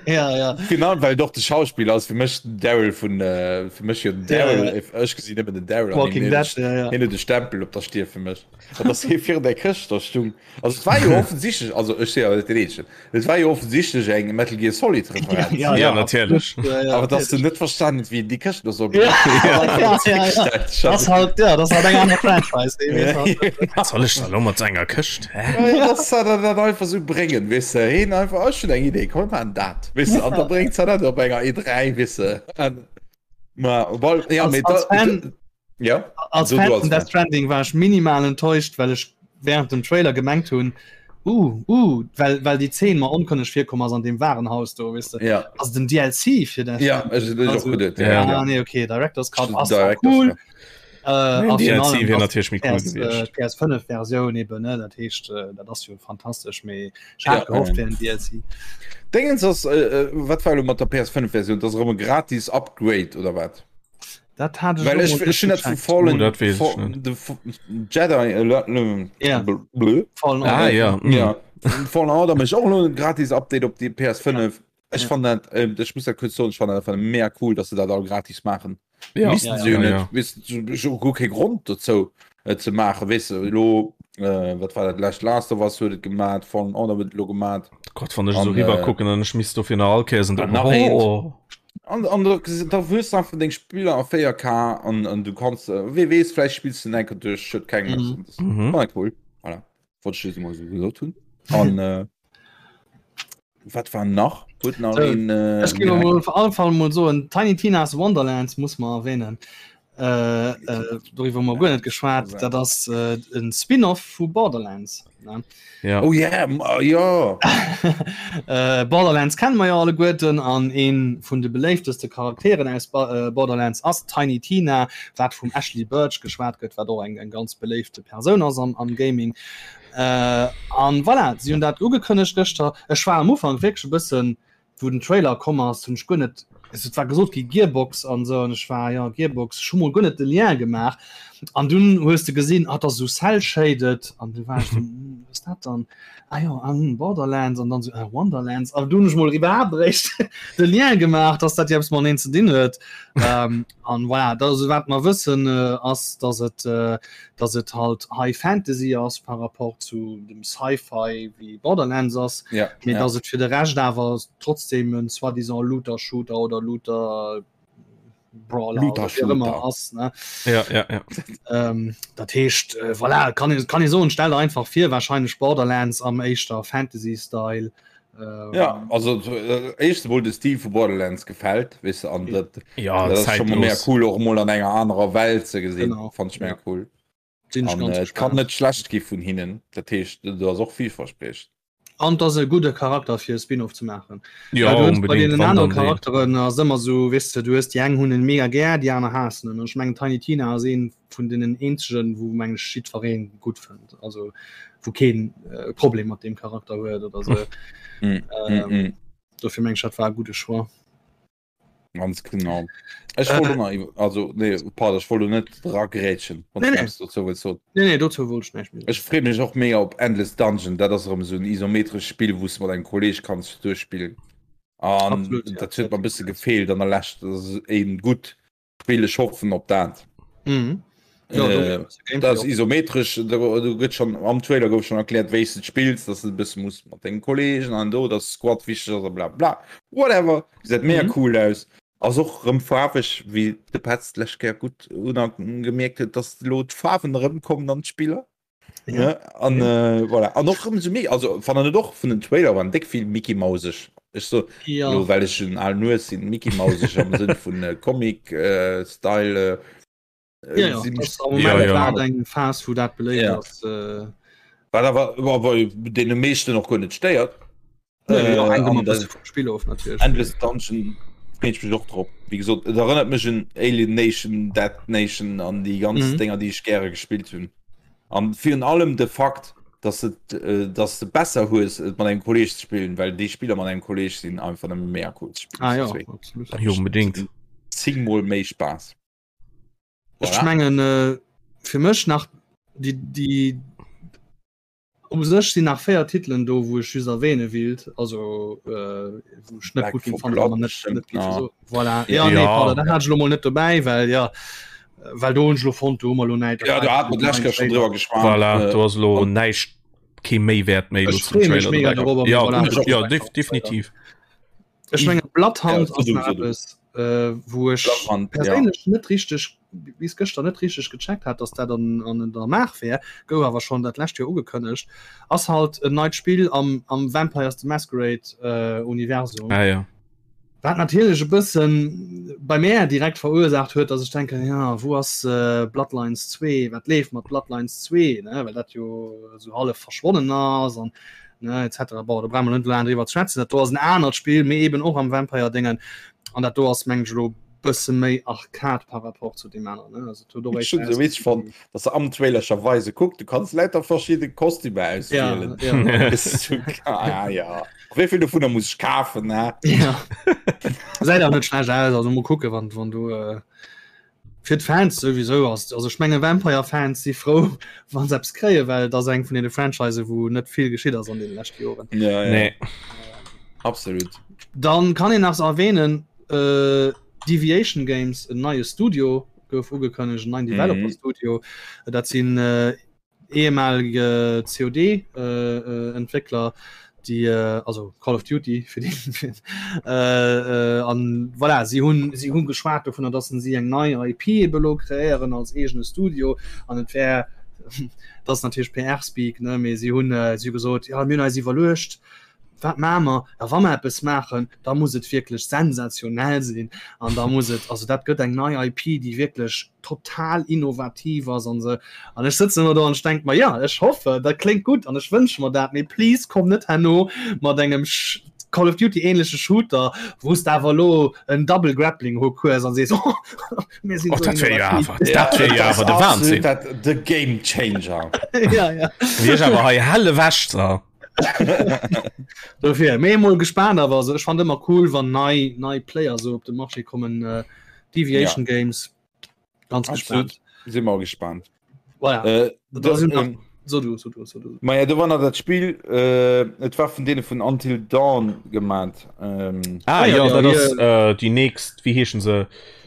Ja, ja. Genau, well doch de Schauspieler ass fir mech den Daryl vun äh, fir mech jo den Daryl Ja, ja. ech gesinn nëmmen den Daryl an Walking hien Dead, huet- ja, ja. hien huet de Stempel op der Stier fir mech. An dass hie virun der Këscht da stung. Also et war jo offensichtlech, also ech si awer net den Eenzegen, et war jo offensichtlech eng Metal Gear Solid Referenz. Ja, Ja, natierlech. Ja, ja, Awer dass du net verstanen huet, wéi een déi Këscht do soll Ja, benutzen. ja, ja, ja. Das ist halt, ja, das ist halt eng aner Franchise. ey, weess halt. Was soll ech da lo mat enger Këscht? Hä? Ja, dass se dat dat einfach sou bréngen, weess de. Heen einfach, ech hunn eng Idee, komm mir maachen dat, weess de. An da bréngt se dat op enger E3, weess de. An, ma, well, ja, Als- mee als da, Fan- da. Ja. Als Fan vun Death Stranding war ech minimal enttäuscht, well ech während dem Trailer gemengt hunn, uh, uh, well, well déi Zeen mer onkënneg virkomm ass an deem Warenhaus do, weess de. Ja. Ass et en DLC fir Death Ja, ech ech och geduet. Ja, ja. nee, okay, Director's Cut ass zwar cool. Cut. Äh, a DLC virun allem wier ass natierlech méi cool PS, äh, gewiescht. PS5 Versioun eben, ne, dat heescht, äh, dat ass jo fantastesch, mee ech hat Ja, gehofft ähm. fir en DLC. Dingens ass, äh, äh, wat war elo mat der PS5-Versioun? Dat ass erëm e gratis Upgrade oder wat? Dat hat ech Well elo ech mol net ech hunn dat vu gecheckt. Fallen Oh, dat weess ech Fa- net. de F- Jedi äh, le- le- Ja. bl- blö. Fallen Ah Order. ja. Mm. Ja. Fallen Order mécht och elo e gratis Update op déi PS5. Ech Ja. fand dat, äh, ech muss dat kuerz soen, ech fand dat einfach mega cool, dass se dat all gratis maachen. Ja. Missten Ja, se jo ja, net, ja. weess du, ech hu guer kee Grond dozou et ze maachen, weess de, elo, äh, wat war dat lescht, Last of Us huet et gemat, Fallen Order huet et elo gemat. Gott, wann ech esou An, riwwer äh, kucken an ech misst dofir nach all Kéiers en an nach eent. Oh. An, an da, da hues du einfach deng Spiller a 4K an, an du kanns, äh, wee weess, vläicht spills du en enker duerch, huet keng Mhm. Das Mhm. war cool. Voilà. Wollt ech just emol esou gesot hunn. An, äh, wat war nach? Huet nach So, een, äh, Ech géif emol op alle Fall mol soen, Tiny Tina's Wonderlands muss mer erwähnen. Äh, äh, doriwwer hu mer guer net geschwat. Dat ass äh, en Spin-off vu Borderlands. Ne? Ja. Oh yeah, m- oh, ja. Äh, Borderlands kenne mer jo alleguerten an een vun de beléifteste Charakteren aus ba äh, Borderlands ass Tiny Tina, wat vum Ashley Burch geschwat gëtt, wat och eng, eng ganz beléifte Persoun ass am, am Gaming. Äh, an voilà, si hunn dat ugekënnegt gëschter. Ech war am Ufank wierklech e bëssen, wou den Trailer komm ass, hunn ech guer net, also et war gesot gi Gearbox an esou, an ech war, jo Gearbox, ech hu mol guer net de Lien gemaach. An dunn hues de gesinn, ah, et ass esou cell-shaded, an du war ech esou, hm, wat ass dat dann? Ah jo, ah, hm, Borderlands, an dann esou, ah, Wonderlands. An dunn hunn ech mol iwwerhaapt eréischt de Lien gemaach, dass dat jo eppes mateneen ze dinn huet. Ähm, an voilà, dat ass wat mer wëssen, ass, dass et, dass et halt High Fantasy ass par rapport zu dem Sci-Fi wéi Borderlands ass, ja, mee ja. dass et fir de Rescht awer trotzdem en soi-disant Looter-Shooter oder Looter Brawler Looter oder wéi och ëmmer Shooter. ass, ne? Ja, ja, ja. Ähm, dat heescht, äh, voilà, kann ee, kann ee soen, stell der einfach vir, wahrscheinlech Borderlands am éischter Fantasy-Style. Ähm, Ja, also äh, éischt emol de Stil vu Borderlands gefält, weess de, an dat, Ja, dat ass schon mal mega zeitlos. cool och emol an enger anerer Welt ze gesinn, Genau. fand ich mega Ja. cool. Sinn ech An ganz äh, et kann gespannt. net schlecht gi vun hinnen, dat heescht, do ass och villverspriechend. An et ass e gudde Charakter fir e Spin-off ze maachen. Ja, Well du hues bei unbedingt, deenen wann anere dann deen. Charakteren ass ëmmer esou, weess de, du hues déi eng hunn en mega gär, déi aner haassen en. An ech mengen Tiny Tina ass een vun deenen eenzegen, wou meng ech jiddweree gutt fënnt, also wou keen äh, Problem mat deem Charakter huet oder sou. Mm, Ähm, mm, mm. Dofir meng ech dat war e gudde Choix. Ganz genau. Ech wollt Äh, och nach iwwer, also nee, pardon, ech wollt lo net dragrätschen, wann Nee, du nee. eppes dozou wëlls soen. Nee, nee, dozou wollt ech näischt méi soen. Ech freeë mech och mega op Endless Dungeon. Dat ass erëm esou en isometrescht Spill, wou s de mat engem Kolleeg kanns duerchspillen. An Absolut, ja. dat huet mer e bësse gefeelt an der Lescht. Dat ass een gutt Spill, ech hoffen op dat. Mhm. Ja, do Äh, Gameplay dat ass och. isometresch, do, do gëtt schon am Trailer gouf schon erkläert, wéi s de et spills, dass du e bësse muss mat denge Kollegen an do, dass Squad wichteg ass a bla bla. Whatever, gesäit mega Mhm. cool aus. Ass och rëm faarweg, wéi de Petz d'lescht Kéier gutt unagemierkt huet, dass elo d'Faarwen erëmkommen an d'Spiller. Ja. Ne? An Ja. äh, voilà. An och rëm sou méi, also fannen et och vun den Trailer waren déck vill Mickey Mauseg. Ech so Ja. lo well ech en alen Hues sinn, Mickey Mauseg am Sënn vun äh, Comic äh, Style. Äh, Ja, ja. si Das mech am Ja, Moment ja. grad eng Phas, wou dat beléift Ja. ass. Äh, Wat awer awer deene meeschten och guer net stéiert. nee, ja, Äh, hänkt ëmmer an e bësse de vum Spill of natierlech. Endless Dungeon freet ech mech och drop. Wéi gesot, et erënnert mech un Alien Nation, Dead Nation an déi ganz Mhm. Dénger, déi ech gäre gespillt hunn. An virun allem de Fakt, dass et, dass de besser hues, et mat engem Kolleeg ze spillen, well déi Spiller mat engem Kolleeg sinn einfach nëmme mega cool ze spillen Ah zu ja, zwee. absolut. Dat Jo, mécht unbedingt. zéngmol méi Spaass. Ech Voilà. mengen, äh, fir mech nach déi, déi U sech sinn nach 4 Titelen do, wou ech just erwähne willt, also äh, wou ech net Back gutt ginn 4 fannen, awer Blood net, bestimmt net géif nach. soen. Voilà. Ja, nee, Ja. pardon, dat hat ech elo mol net dobäi, well ja, well do hunn ech elo fonnt, do hu mer elo näischt. Ja, do hat mer d'lescht Kéier schonn driwwer geschwat. Voilà, Äh, do ass elo an näischt, kee Méiwäert méi elo Ech zum freeë mech Trailer mega dobäi. dorobber, mee Ja, voilà, ech och. ja, def definitiv. Ech mengen Ja, Bloodhound so ass du, nach so du. eppes, äh, wou ech Bloodhound, ja. perséinlech net richteg bis gëschter net richteg gecheckt hat, dass dat an, an der Maach wär, gouf awer schonn dat lescht Joer ugekënnegt, ass halt en neit Spill am, am Vampires the Masquerade äh, Universum. Ah, ja. Wat natierlech e bëssen bei mär direkt verursaacht huet, dass ech denken, ja, wou ass Bloodlines 2, wat leeft mat Bloodlines 2, ne, well dat jo esou hallef verschwonnen ass an ne et cetera. Bon, do brauche mer net laang driwwer ze schwätzen, dat do ass en anert Spill, mee eben och am Vampire-Déngen an dat do ass mengen ech elo bësse méi Arcade par rapport zu deem aneren, ne, also et huet och Ech hunn esou witzeg fonnt, dass se am Trailer scho weise, kuck, du kanns lauter verschidde Kostümer auswielen. Ja, ja. Ah, ja. Wéi vill dovunner muss ech kafen, ne? Ja. Säit auch net schlecht aus, also mol kucke wann wann du äh, fir d'Fans sowieso ass. Also ech menge Vampire Fans si frou wann se eppes kréie, well dat ass eng vun deene Franchise wou net vill geschitt ass an den leschte Joren. Ja, ja. Nee. Absolut. Dann kann een nach erwähnen äh, Deviation Games en neie Studio gouf ugekënnegt, en neien Developer Studio. Dat sinn äh, ehemalige COD-Entwéckler, déi also Call of Duty fir déi an voilà si hunn si hunn geschwat dovunner, datt si eng nei IP ebe lo kreéieren als eegene Studio an et wär dat ass natierlech PR-Speak ne, mee si hunn si hu gesot, jo mir hunn eis iwwerluecht, Wat maache mer? Ja, wa mer eppes maachen, da muss et wierklech sensationell sinn an da muss et, also dat gëtt eng nei IP, déi wierklech total innovativ ass an esou. An ech sëtzen ëmmer do an ech denke mer, ja, ech hoffe, dat kléngt gutt an ech wënsche mer dat, mee please komm net herno mat engem Call of Duty-ähnleche Shooter, wou s de awer elo en Double Grappling Hook hues an sees, oh, mir sinn Oh, esou dat wär jo innovativ. awer, dat wär jo awer de Wahnsinn. Dat, the Game Changer. Ja, ja. Wier ech awer hei hell ewech, da. Dofir méi mol gespannt awer also ech fand ëmmer cool wann nei nei Player so op de Marché kommen äh, Deviation ja. Games ganz gespannt si mal gespannt voilà. äh, da da, sind nach, ähm, so du, so du, so du. Ma ja, do war nach dat Spiel äh, et war vun deene vun Until Dawn gemat ähm, Ah, Ah, ja, ja, ja, dat ass hier- äh, déi nächst, wéi heeschen se?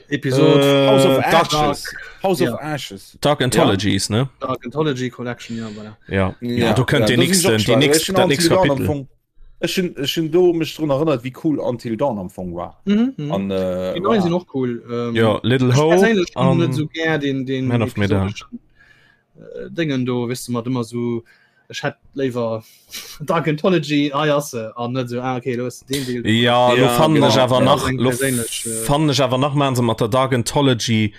Episode Äh, House of Dark, Ashes House of Ja. Ashes Dark Anthologies, ne? Dark Anthology Collection ja voilà. Ja. Ja, do kënnt ja, dee do sinn ech nächsten, och déi gespannt. nächst, Ech hunn dat nächst Until Dawn am Kapitel. Fong ech hunn ech hunn do mech drun erënnert wéi cool Until Dawn am Fong war mhm, mhm. an äh, Die neuen voilà. sind och cool ähm, Ja, Little ech Hope perséinlech hunn net an so gär den den Man of Medan. episodeschen äh, Dingen do wis du mat ëmmer so ech hätt léiwer Dark Anthology hei ass se an net so ah, okay lo hues de deen Deel Ja, lo Ja, fannen ech genau. awer Ja, nach eng lo perséinlech, äh, fannen ech awer nach maachen se mat der Dark Anthology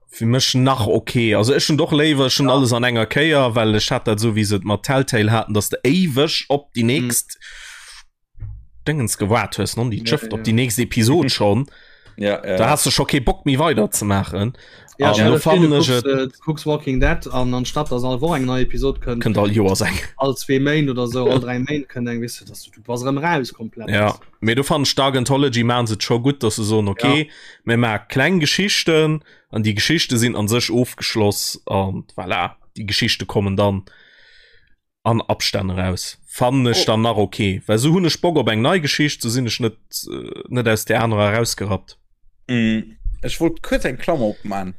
fir mech nach okay. Also ech hunn doch léiwer ech hunn alles an enger Kéier, well ech hat dat esou wéi se et mat Telltale haten, dass de éiweg op déi nächst Dingens gewaart hues, non déi Ja, Schëft op ja. déi nächst Episod schon. Ja, ja. Da has du scho kee Bock méi weider ze maachen. Ja, An stell lo dir vir, du fannen ech kucks, et äh, du kucks Walking Dead an anstatt dass all Woch eng nei Episod kënnt, kënnt all Joers eng. all zwee Méint oder sou, all dräi Méint kënnt eng, weess du, dass du, du bass erëm raus komplett. Ja, mee do fannen ech Dark Anthology maachen se et scho gutt, dass se soen, okay, mir maache kleng Geschichten an déi Geschichte sinn an sech ofgeschloss an voilà, déi Geschichte kommen dann an Abstänn eraus. Fannen ech Oh. dann nach okay, well sou hunn ech Bock op eng nei Geschicht, sou sinn ech net äh, net aus där anerer erausgerappt. Mm, Ech wollt kuerz eng Klammer opman,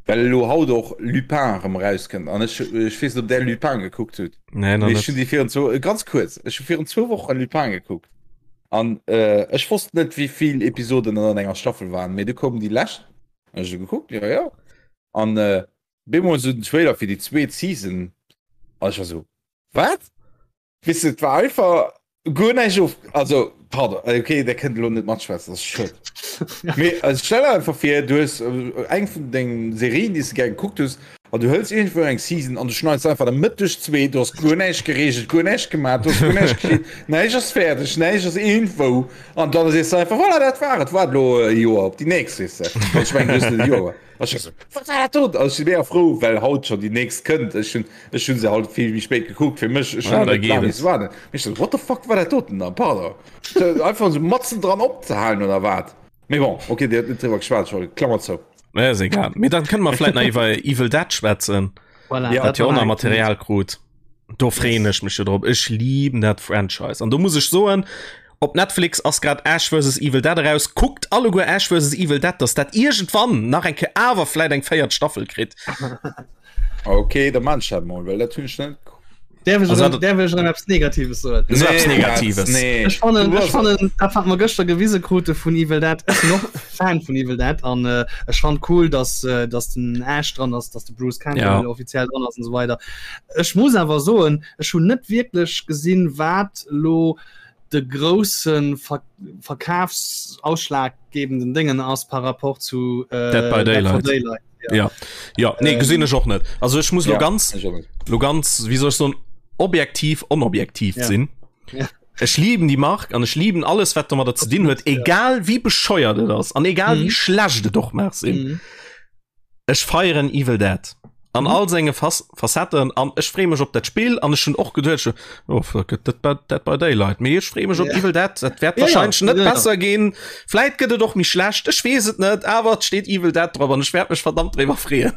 well elo haut och Lupin erëm erauskënnt an ech ech weess net, ob där Lupin gekuckt hutt. Nee, nach Mee ech net. hunn déi virun zwou, ganz kuerz, ech hu virun zwou Wochen Lupin gekuckt an äh, ech wosst net, wéi vill Episoden et an enger Staffel waren, mee du koumen déi lescht an ech hu gekuckt, jo jo, an äh, Bemol sou den Trailer fir déi zweet Season an ech war sou, wat? Weess de, et war einfach guer näischt of, also pardon, okay, der kënnt elo net matschwätzen, dat ass schued. Mee also stell der einfach vir, du hues eng vun dengen Serien, déi s de gär gekuckt hues, an du hëls iergendwou eng Season an du schneits einfach der Mëtt duerch zwee, du hues guer näischt gereegelt, guer näischt gemaach, du hues guer näischt geschitt, näischt ass fäerdeg, näischt ass iergendwou an dann sees de einfach, voilà, dat war et, waart elo e Joer op déi nächst, weess de. An ech mengen, du hues net e Joer. Ech so, wat war dat do? Also, ech si mega frou, well haut schon déi nächst kënnt. Ech hunn ech hunn se halt vill méi spéit gekuckt. Fir mech ech Ah, hunn da net geet laang et. missen waarden. Mee ech so, what the fuck war dat doten dann? Pardon. So, einfach so matzen dran opzehalen oder wat? Mee bon, okay, Dir hutt net driwwer geschwat, ech wollt Klammer zou. Ja, ass egal. Mee dann kënne mer vläit nach iwwer Evil Dead schwätzen. Voilà, Ja, Dat jo war och nach eng Material krut. Do freeën ech mech jo drop. Ech lieben dat Franchise. An do muss ech soen, op Netflix ass grad Ash vs. Evil Dead eraus. Kuckt alleguer Ash vs. Evil Dead, dass dat iergendwann nach eng Kéier awer vläit eng véiert Staffel kritt. Okay, da man ech dat mol, well dat hunn ech net gekuckt. Däerf ech Also erëm, dat- däerf ech erëm eppes Negatives soen? So eppes Negatives. Nee. Ech fannen, Du ech bass- fannen, dat wat mer gëschter gewise krute vun Evil Dead, ech sinn och Fan vun Evil Dead an äh, ech fand cool, dass, äh, dass den Ash dran ass, dass de Bruce Campbell Ja. offiziell dran ass und so weiter. Ech muss awer soen, ech hunn net wierklech gesinn, wat lo. de grousse Ver Verkafsausschlaggebenden Déngen ass par rapport zu äh, Dead by Daylight. Daylight. Ja. Ja. ja nee ähm, gesinn ech och net. Also ech muss ja, lo ganz lo ganz wie soll ich so objektiv onobjektiv ja. sinn. Ja. Ech lieben die Mark an ech lieben alles wat domadder ze dinn huet, egal wie bescheuert et ass an egal mhm. wie schlecht et och mag sinn. Mhm. Ech feieren Evil Dead an all senge Facetten an ech freeë mech op dat Spill an ech hunn och geduecht, oh fuck et Dead by, Dead by Daylight, mee ech freeë mech op Evil Dead, dat wäert wahrscheinlech net besser ginn, vläit gëtt et och méi schlecht, ech weess et net, awer et steet Evil Dead drop an ech wäert mech verdammt driwwer freeën.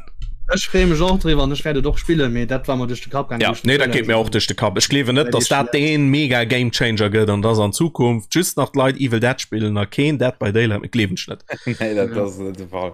Ech freeë mech och driwwer an ech wäert et och spillen, mee dat war mer duerch de Kapp gaangen, Ja, wou ech den nee, dat Trailer geet mir gesinn och duerch de Kapp. Ech gleewen net, dass dat dee mega Gamechanger gëtt an dass an Zukunft just nach d'Leit Evil Dead spillen a keen Dead by Daylight méi, gleewen ech net. Nee, dat ass net de Fall.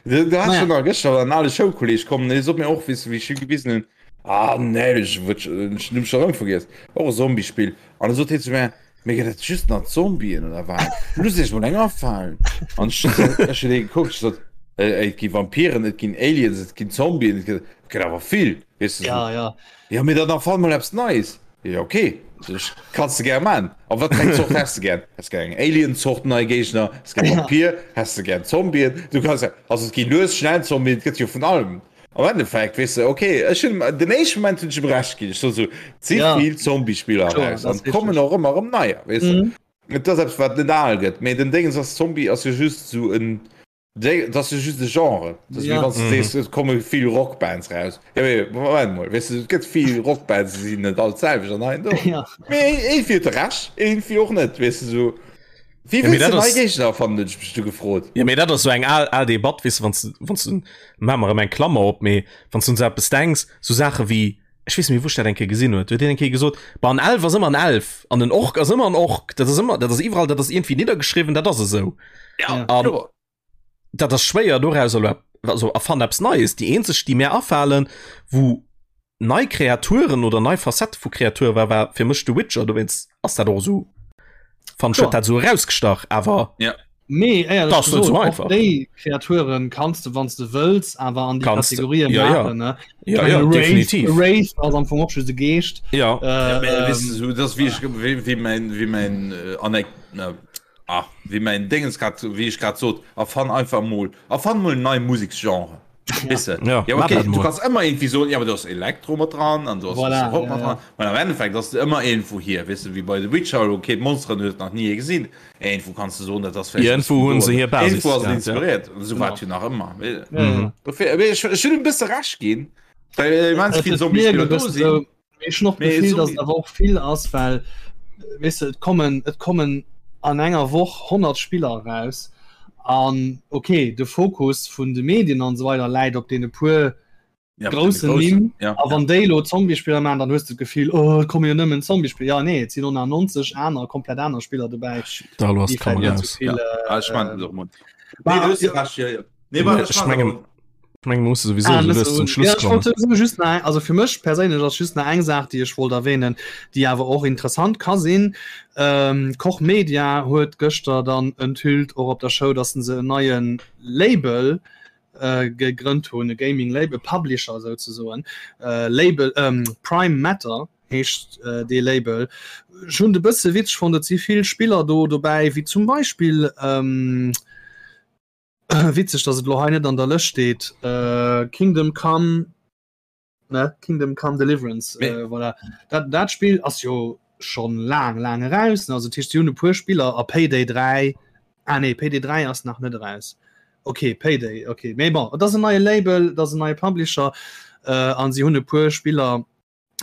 Du, du hast schon nach gëschter an ale Schoulkolleg kommen, dee sot mir och, wéi wéi ech him gewisen hunn, ah nee, ech wëll ech hunn schon erëm vergiess, och e Zombiespill. An da sot hie zu mir, mee gëtt et just nach Zombien oder wat? Looss iech mol eng afalen. An ech ech hunn hie gekuckt, ech sot, et gi Vampiren, et ginn Aliens, et ginn Zombien, et gëtt et gëtt awer vill, weess de. Ja, ja. Ja, mee dann erfann mol eppes Neies. Jo, okay, sech, kanns de gär man. A wat fir eng Zort häss de gär? Häss gär eng Alien-Zort nei Géigner? Häss gär Vampir? Häss de gär Zombien? Du kanns ja, also et gi lues, schnell Zombien, et gëtt jo vun allem. Am Endeffekt, weess de, okay, ech hunn, den éischte Moment hunn ech em Recht ginn. Ech sot esou, et si vill Zombie-Spiller eraus an et kommen och ëmmer erëm neier, weess de. Et ass eppes, wat net al gëtt. Mee den Déngens ass, Zombie ass jo just esou en Dat ass jo just e Genre. Dat ass wéi wann s du sees, et komme vill Rockbands raus. Ja, mee Moment mol, weess du, et gëtt vill Rockbands, déi sinn net all d'selwecht an hei an do. Ja. Mee iergendwéi huet e Recht, iergendwéi och net, weess du, sou. Wéi Ja, mee wëlls dat de nei ass. Géigner erfannen, hunn ech mech du gefrot. Ja, mee dat ass sou eng al, al Debatt, weess du, wann s du, wann s du, maache mer erëm eng Klammer op, mee wann s du un sou eppes denks, sou Saache wéi, ech weess net méi, wou ech dat eng Kéier gesinn huet, huet een eng Kéier gesot, Bah, en Elf ass ëmmer en Elf an en Ork ass ëmmer en Ork, dat ass ëmmer, dat ass iwwerall, dat ass iergendwéi niddergeschriwwen, dat ass esou. Ja, An kloer. dat ass schwéier doraus elo ep-, also erfann eppes Neies. Déi eenzeg, déi mär afalen, wou nei Kreaturen oder nei Facette vu Kreature war, war fir mech The Witcher, dowéinst ass dat och esou, fand ech, huet dat esou erausgestach, awer. Ja. Mee éierlech Das net gesot, so och einfach. déi Kreaturen kanns de, wann s de wëlls, awer an déi Kanns de, Kategorien ja, ja. maachen, ne? Ja, Ich ja, meine, Wraith, definitiv. Wraith ass am Fong och just e Geescht. Ja. Äh, Ja, mee, weess ähm, de, sou, dat ass wéi ech, wéi, wéi mäin, wéi mäin äh, Anek, na, ah, wéi mäin Déngens grad, wéi ech grad sot, erfann einfach mol, erfann mol en neie Museksgenre. Weess de? Ja, Ja, mach okay, dat du mol. kanns ëmmer irgendwie soen, ja, aber do ass Elektro mat dran an do ass Voilà, Rock ja, mat ja. dran. Mä am Endeffekt ass et ëmmer irgendwou hier, weess de, wéi bei The Witcher, okay, d'Monsteren huet nach ni ee gesinn. Irgendwou kanns de soen, dat ass vläicht e Irgendwou bëssen hunn do se oder hir Basis irgendwou ass et gehat, ja. inspiréiert. Esou war Genau. et jo nach ëmmer. Ja, ja. Mhm. Dofir, mee ech, ech hunn e bësse Recht ginn, well immens Et vill et mierkt Zombiespiller e do bëssen sinn. esou, mee ech hunn och Mee d'Gefill, datt Zombie et awer och vill ass, well, weess de, et kommen, et kommen an enger Woch 100 Spiller eraus an okay, de Fokus vun de Medien an esou weider läit op deene puer ja, op deene groussen groussen, Nimm. ja. A wann déi elo Zombiespiller maachen, dann hues de d'Gefill, oh, et komme jo nëmmen Zombiespiller. Ja, nee, et sinn och nach 90 aner, komplett aner Spiller dobäi, Da lo ass déi vläicht d'Kamera net aus. esou vill. Ja, ah, ech mein, Äh, doch mol. Bah, Nee, du hues ja. recht, ja, ja. Nee, warte, Ech ech mach mengen, awer. ech mengen, mir musse sowieso Ah, sou net lues so, zum Schluss ja, ech wollt kommen. sowieso just nach, also fir mech perséinlech ass just nach eng Saach, déi ech wollt erwähnen, déi awer och interessant ka sinn. Ähm, Koch Media huet gëschter dann enthüllt, och op der Show, dass se en neie Label äh, gegrënnt hunn, e Gaming Label, Publisher souzesoen, äh, Label, ähm, Prime Matter heescht äh, dee Label. Ech hunn et e bësse witzeg fonnt, et si vill Spiller do dobäi, wéi zum Beispill ähm, Witzeg, dass et lo hei net an der Lëscht steet. Äh, Kingdom Come, ne? Kingdom Come Deliverance. Nee. Äh, voilà. Dat, dat Spill ass jo schon laang, laang eraus. Also, dat heescht, si hunn e puer Spiller a Payday 3. Ah nee, Payday 3 ass nach net eraus. Okay, Payday, okay. Mee bon, et ass en neie Label, et ass en neie Publisher äh, an si hunn e puer Spiller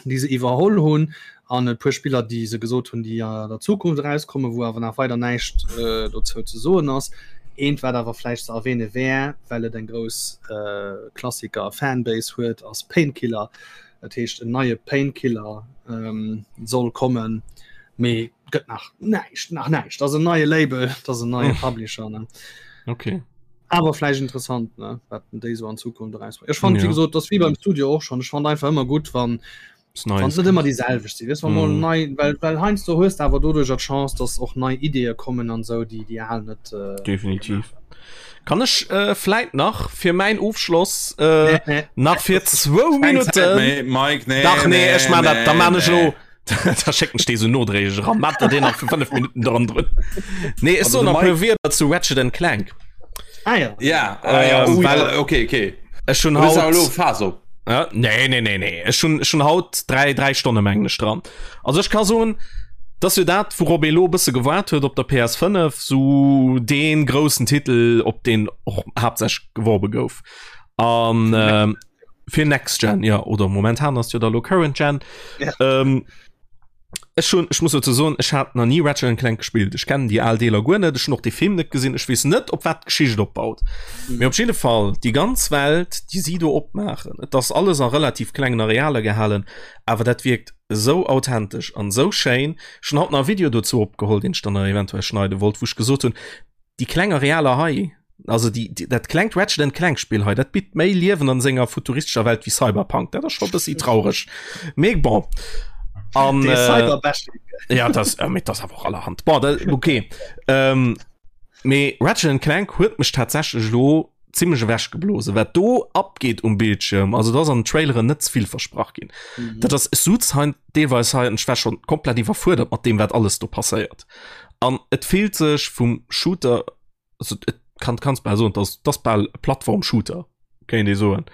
déi se iwwerholl hunn an e puer Spiller déi se gesot hunn, déi an der Zukunft erauskommen, wou awer nach weider näischt äh, dozou ze soen ass. Eent wat awer vläicht ze erwähne wär, well et eng grouss äh, Klassiker Fanbase huet, ass Painkiller. Dat heescht en neie Painkiller ähm, soll kommen, mee gëtt nach näischt, nach näischt. Dat ass en neie Label, dat ass en neie Publisher. Ne? Okay. Awer vläicht interessant, ne? Wat déi sou an Zukunft erausbréngen. Ech fand, Ja. wéi gesot, das wie beim Studio och schon. Ech fand einfach ëmmer gutt, wann Ist wann Neues net ëmmer kommt. déi selwecht sinn. Weess, wann mol Mm. nei, well, well heiansdo hues de awer doduercher d'Chance, dass och nei Ideeë kommen an sou, déi déi al net äh, Definitiv. Kann ech äh, vläit nach fir mäin Ofschloss äh, Nee, nee. nach fir zwou Keng Zäit Minutten méi, Mike, nee, Dach nee, ech man dat, da nee, man ech nee. elo. Da schécken ech dee sou nodréiglech eran. Mat der deen nach fir 5 Minutten dran drun. Nee, ech soen nach e puer Wierder zu Ratchet and Clank. Ah ja. Ja, ah, ja. Ähm, Oh, well- ja. Okay, okay. Ech hunn Du bist haut awer elo Phas op. Ja, nee, nee, nee, nee. Ech hunn, ech hunn haut 3, 3 Stonne mengen ech dran. Also ech ka soen, dass jo dat, wourop ee lo e bësse gewaart huet op der PS5, sou dee groussen Titel, op deen och haaptsächlech geworbe gouf. An ähm, fir Next Gen, ja, oder momentan ass jo da lo Current Gen. Ja. Ähm, ech hunn, ech muss dozou soen, ech hat nach ni Ratchet and Clank gespillt. Ech kennen déi al Deeler guer net, ech hunn och de Film net gesinn, ech weess net, op wat d'Geschicht opbaut. Mee op jidde Fall, déi ganz Welt, déi si do opmaachen, et ass alles a relativ klengen Arealer gehalen, awer dat wierkt esou authentesch an esou schéin. Ech hunn haut nach e Video dozou opgeholl, deen ech dann nach eventuell schneide wollt, wou ech gesot hunn, déi kleng Arealer hei, also déi, déi, dat klengt Ratchet and Clank Spill hei, dat bitt méi Liewen an senger futuristescher Welt wéi Cyberpunk. Dat ass scho e bëssi traureg. Mee bon. An, Dee äh, Cyberbashing. ja, das, äh, mee das awer och allerhand. Bon, dat, okay. Ähm, mee Ratchet and Clank huet mech tatsächlech lo zimmlech ewechgeblosen, wat do abgeet um Bildschirm. Also da ass an den Traileren net ze vill versprach ginn. Mhm. Dat ass, ech suz hein deelweis hei an ech war schon komplett iwwerfuerdert mat deem, wat alles do passéiert. An et fillt sech vum Shooter, also et kann kanns bal soen, dass dass bal e Plattform-Shooter, kéint ee soen.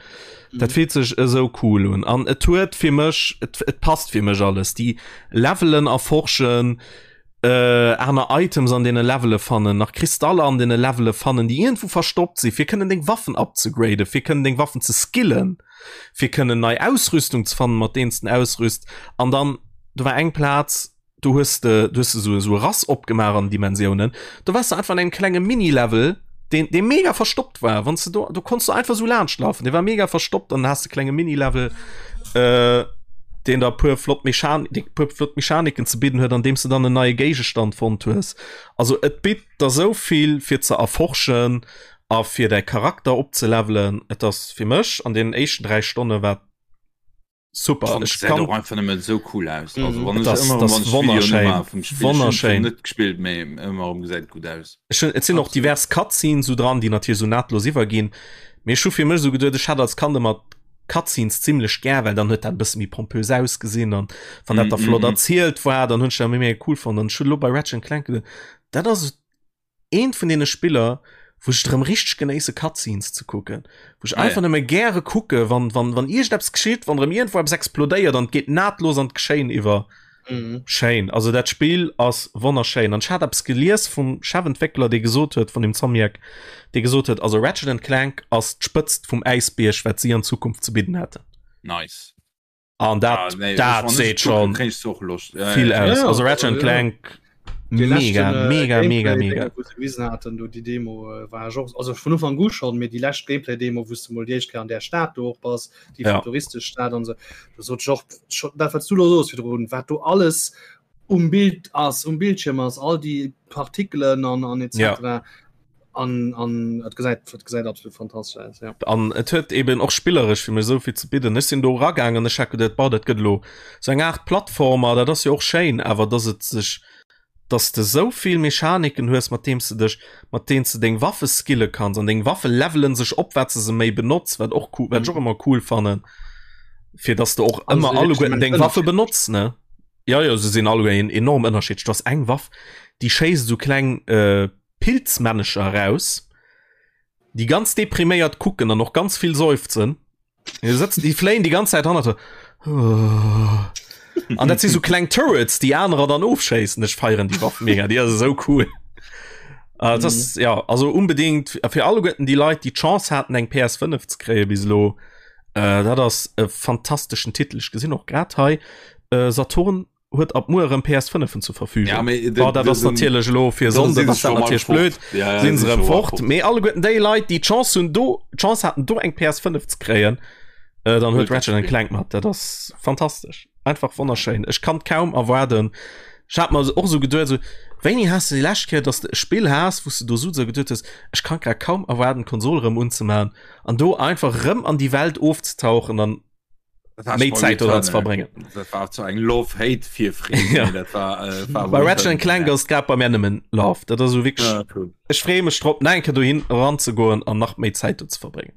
Dat Mhm. fillt sech esou cool un an et huet fir mech, et et passt fir mech alles. Déi Levelen erforschen, äh, aner Items an deene Levele fannen, nach Kristaller an deene Levele fannen, déi iergendwou verstoppt sinn, fir kënnen deng Waffen upzegraden, fir kënnen deng Waffen ze skillen, fir kënnen nei Ausrüstung ze fannen, mat deenen s de ausrüst. An dann, do war eng Plaz, do hues de, do hues de sou, sou e Rass opgemaach an Dimensiounen, do waars de einfach an engem klenge Mini-Level, deen, dee mega verstoppt war. Wann s de do, do konns du einfach sou laanscht lafen, dee war mega verstoppt an dann has de klenge Mini-Level, äh, deen der puer flott Mechan déi puer flott Mechaniken ze bidden huet, an deem s de dann en neie Géigestand fonnt hues. Also et bitt der sou vill fir ze erforschen a fir däi Charakter opzelevelen. Et ass fir mech an deenen éischten 3 Stonne war super. Ech Ech kann och einfach nëmmen esou cool aus. Mhm. Also wann Et ech ass- ëmmer das wann ech Videoen wonnerschéin. ëmmer vum Spill Wonnerschéin. net gespillt, mee ëmmer erëm gesäit gutt aus. Ech hunn, et sinn och Absolut. divers Cutscenes sou dran, déi natierlech sou nahtlos iwwerginn. Mee ech hu fir mech sou geduet, ech hat als Kand ëmmer Cutscenes zimmlech gär, well dann huet dat e bësse méi pompös ausgesinn an wann dat da Mm, flott mm, mm. erzielt war, dann hunn ech dat méi méi cool fonnt. An ech hunn elo bei Ratchet and Clank geduet, dat ass eent vun deene Spiller, wou ech et erëm richteg genéisse Cutscenes ze kucken, wou ech Ah, einfach ja. nëmme gäre kucke wann, wann, wann iergendeppes geschitt, wann erëm iergendwou eppes explodéiert an et geet nahtlos an d'Geschéien iwwer. Mhm. Schéin, also dat Spill ass wonnerschéin an ech hat eppes gelies vum Chefentwéckler dee gesot huet, vun dem Insomniac, dee gesot huet, also Ratchet and Clank ass d'Spëtzt vum Äisbierg wat si an Zukunft ze bidden hätten. Nice. An dat, Ah, nee, dat wann ech seet kucken, schon kréien ech och Loscht. Ja, vill ja, aus. Ja, Also Ratchet and ja. Clank Dee mega, leschten, äh, mega, mega, Gameplay-Ding, mega. wou se gewisen haten, do déi Demo äh, war ech och, also vun Ufank u schon, mee déi lescht Gameplay-Demo, wou s du mol déi éischt Kéier an där Stad do och bass, déi Ja. futuristesch Stad an sou, do sot ech och scho, dat wat s du lo sos virdrun, wat do alles um Bild ass, um Bildschirm ass, all déi Partikelen an an etc. Ja. An an et gesäit et gesäit absolut fantastesch aus, ja. An et huet eben och spilleresch fir mech esou vill ze bidden. Ech sinn do eragaangen, ech hat geduet, boah, dat gëtt elo sou eng Aart Plattformer, dat ass jo och schéin, awer dass et sech, dass de esou vill Mechaniken hues, mat deem s de dech, mat deenen s de deng Waffe skille kanns an deng Waffe levelen sech op, wat s de se méi benotz, wat och cool, wat ech och ëmmer cool fannen, fir dass de och An ëmmer se alleguerten immens deng Waffe ënnerschiddlech. benotz, ne? Jo, jo, se sinn alleguer enorm ënnerschiddlech. Du has eng Waff, déi schéisst esou kleng Pilzmännecher eraus, déi ganz depriméiert kucken an och ganz vill seufzen. Déi sëtzen, déi fléien déi ganz Zäit hannert der. An dat si sou kleng Turrets, déi anerer dann ofschéissen. Ech feieren déi Waff mega, déi ass esou cool. Äh, das, mhm. ja, also unbedingt fir alleguerten déi Leit, déi d'Chance haten eng PS5 ze kréie bis elo, äh, dat ass e fantasteschen Titel. Ech gesinn och grad hei äh, Saturn huet ab muer erëm PS5en zur Verfügung. Ja, mee, oh, dat ass natierlech elo fir Sonnde ass dat natierlech blöd. Ja, ja, sinn se erëm fort. fort. Mee alleguerten déi Leit, déi d'Chance hunn do d'Chance haten do eng PS5 ze kréien, äh, dann huet Ratchet and Clank mat. Dat ass fantastesch. Einfach wonnerschéin. Ech kann kaum erwaarden. Ech hat mer och sou geduet, sou, wéini has de déi lescht Kéier, dass de e Spill has, wou s de do sou geduet hues, ech kann grad kaum erwaarden, d'Konsol erëm unzemaachen an do einfach erëm an déi Welt ofzetauchen an méi Zäit doran ze verbréngen. Dat war zu eng Love-Hate Virfreed. Ja. Dat war, äh, war Bei Ratchet and Clank ass grad bei mir nëmmen Love. Dat ass sou wierklech Ja, cool. ech freeë mech drop, nach eng Kéier dohin eranzegoen an nach méi Zäit do ze verbréngen.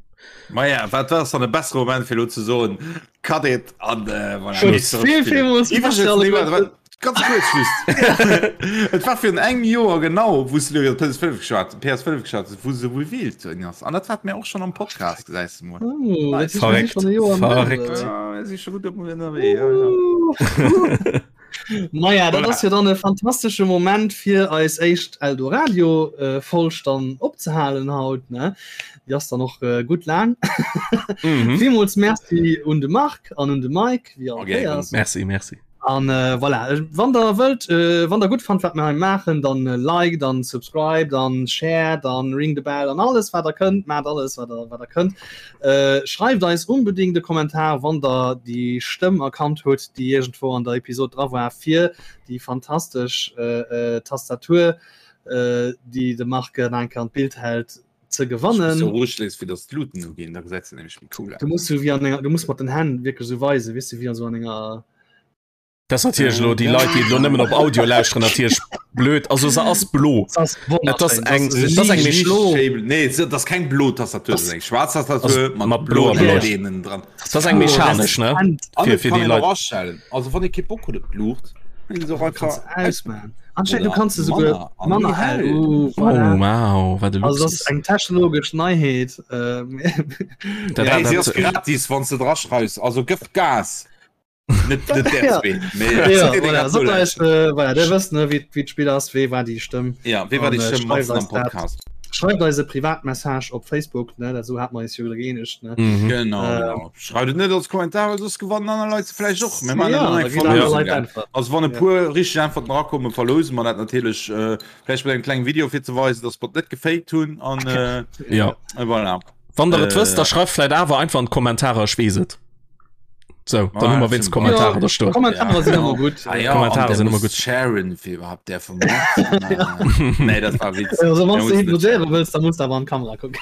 Maja, wat ass dann e bessere Moment fir lo ze soen, cut it an äh, voilà. Schluss. Vill, villmools Iwwregens, Merci nee, alleguerten. warte, warte, ganz kurz just. Et war virun engem Joer genau, wou s du iwwer PS5 geschwat, PS5 geschwat hues, wou se revealed ginn ass. An dat hat mir och schon am Podcast, gesäis du mol. Oh, dat Nice. heescht, mir si Verréckt, schon e Joer am verréckt. Gaangen. Ja, mir si scho gutt ënnerwee, ja, ja. Maja, dat Voilà. ass jo dann e fantastesche Moment fir eis éischt Eldoradio äh, Folg dann opzehalen haut ne. Déi ass dann och äh, gutt laang. Mhm. Villmools Merci un de Marc an un de Mike wéi all Okay, Kéiers. Merci, merci. An äh, voilà, äh, wann der wëllt, äh, wann der gutt fannt wat mir hei maachen, dann äh, like, dann subscribe, dann share, dann ring the bell an alles wat der kënnt, maacht alles wat der, wat der kënnt. Äh, schreift eis unbedingt e Kommentar, wann der déi Stëmm erkannt hutt, déi iergendwou an der Episod dra war, fir déi fantastesch äh, äh, Tastatur, äh, déi de Marc nach eng Kéier an d'Bild hält, ze gewannen. So roueg léiss, fir dass d'Luuten uginn, da gesäit se nämlech méi cool aus. Du musst so wéi an enger, du musst mat den Hänn wierklech sou weisen, weess du, wéi an sou an enger. Dat ass natierlech elo déi Leit, déi elo nëmmen op Audio lauschteren, natierlech blöd. Also se ass blo. Se ass Et ass wonnerschéin. eng, Se et ass eng liicht méi blo. Nee, dat ass keng blo Tastatur, dat ass eng schwaarz Tastatur mat mat bloer bloen Beleuchtung. LEDen dran. Dat ass eng mechanesch, ne? An Fir et fir kann déi een och Leit. aschellen. Also wann ee kee Bock huet op d'Luucht, kann een se och Kanns einfach ausmachen. Anscheinend, du Oder kanns se souguer manner an manner méi hell. hell. Uh, Oh voilà. wow, wat e Also dat Luxus. ass eng technologesch Neiheet. Ähm, Dat, Hey, dat, si ass dat, gratis, wann s de dra schreifs. Also gëff Gas. Net net där Ja. zwee, mee Ja, déi, déi voilà. grad Sot eis, nolauschteren. äh, voilà, der wësst, ne, wéi wéi d'Spill ass, wee war déi Stëmm. Ja, wee war An, déi äh, Stëmm schreift matzen am eis dat. Podcast? Schreift eis e Privatmessage op Facebook, ne, dat sou hat mer eis jo geenegt, ne. mhm. Genau, Ähm, genau. Schreift et net als Kommentar, well soss gewannen aner Leit se vläicht och. Mir maachen Ja, dat da eng ginn aner Verlosung, Leit gell? äntwert. Also wann e Ja. puer richteg Äntwerten erakommen, verlose mer dat natierlech äh, vläicht mat engem klengen Video fir ze weisen, dass mer et net gefaked hunn an äh, Ja. voilà. Wann der et wësst, Äh, da schreift vläicht awer einfach an d'Kommentarer, ech weess et. So, dann Ah, hu mer wéinst sinn- Kommentarer Ja, da stoen. Kommentare Ja, sinn genau. ëmmer gutt. Ah, ja, Kommentare an der sinn ëmmer muss gutt. Sharen fir iwwerhaapt där vum Markt. Nee, dat war Witz. Also wann Der du muss net hypnotiséiere wëlls, da muss du awer an d'Kamera kucken.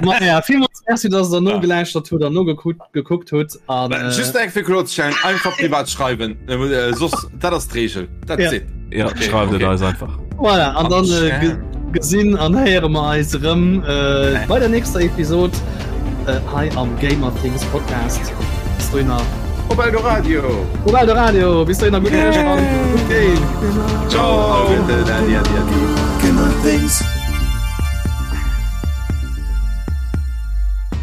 Maja, villmools Merci, dass der nogelauschtert hutt an nogekuckt gekuckt hutt. An, äh, Just eng fir kloerzestellen, einfach privat schreiwen. Äh, soss, dat ass d'Regel. That's Ja. it. Ja, Okay, schreift et okay. eis einfach. Voilà, an dann äh, ge gesinn an héiere mer eis erëm äh, bei der nächster Episod äh, hei am Gamer Things Podcast. Bis dohinner. Op Eldoradio! Op Eldoradio! Bis dohinner, gutt Nuecht an gutt Game! Ciao! Adi, adi, adi. Gamer Things.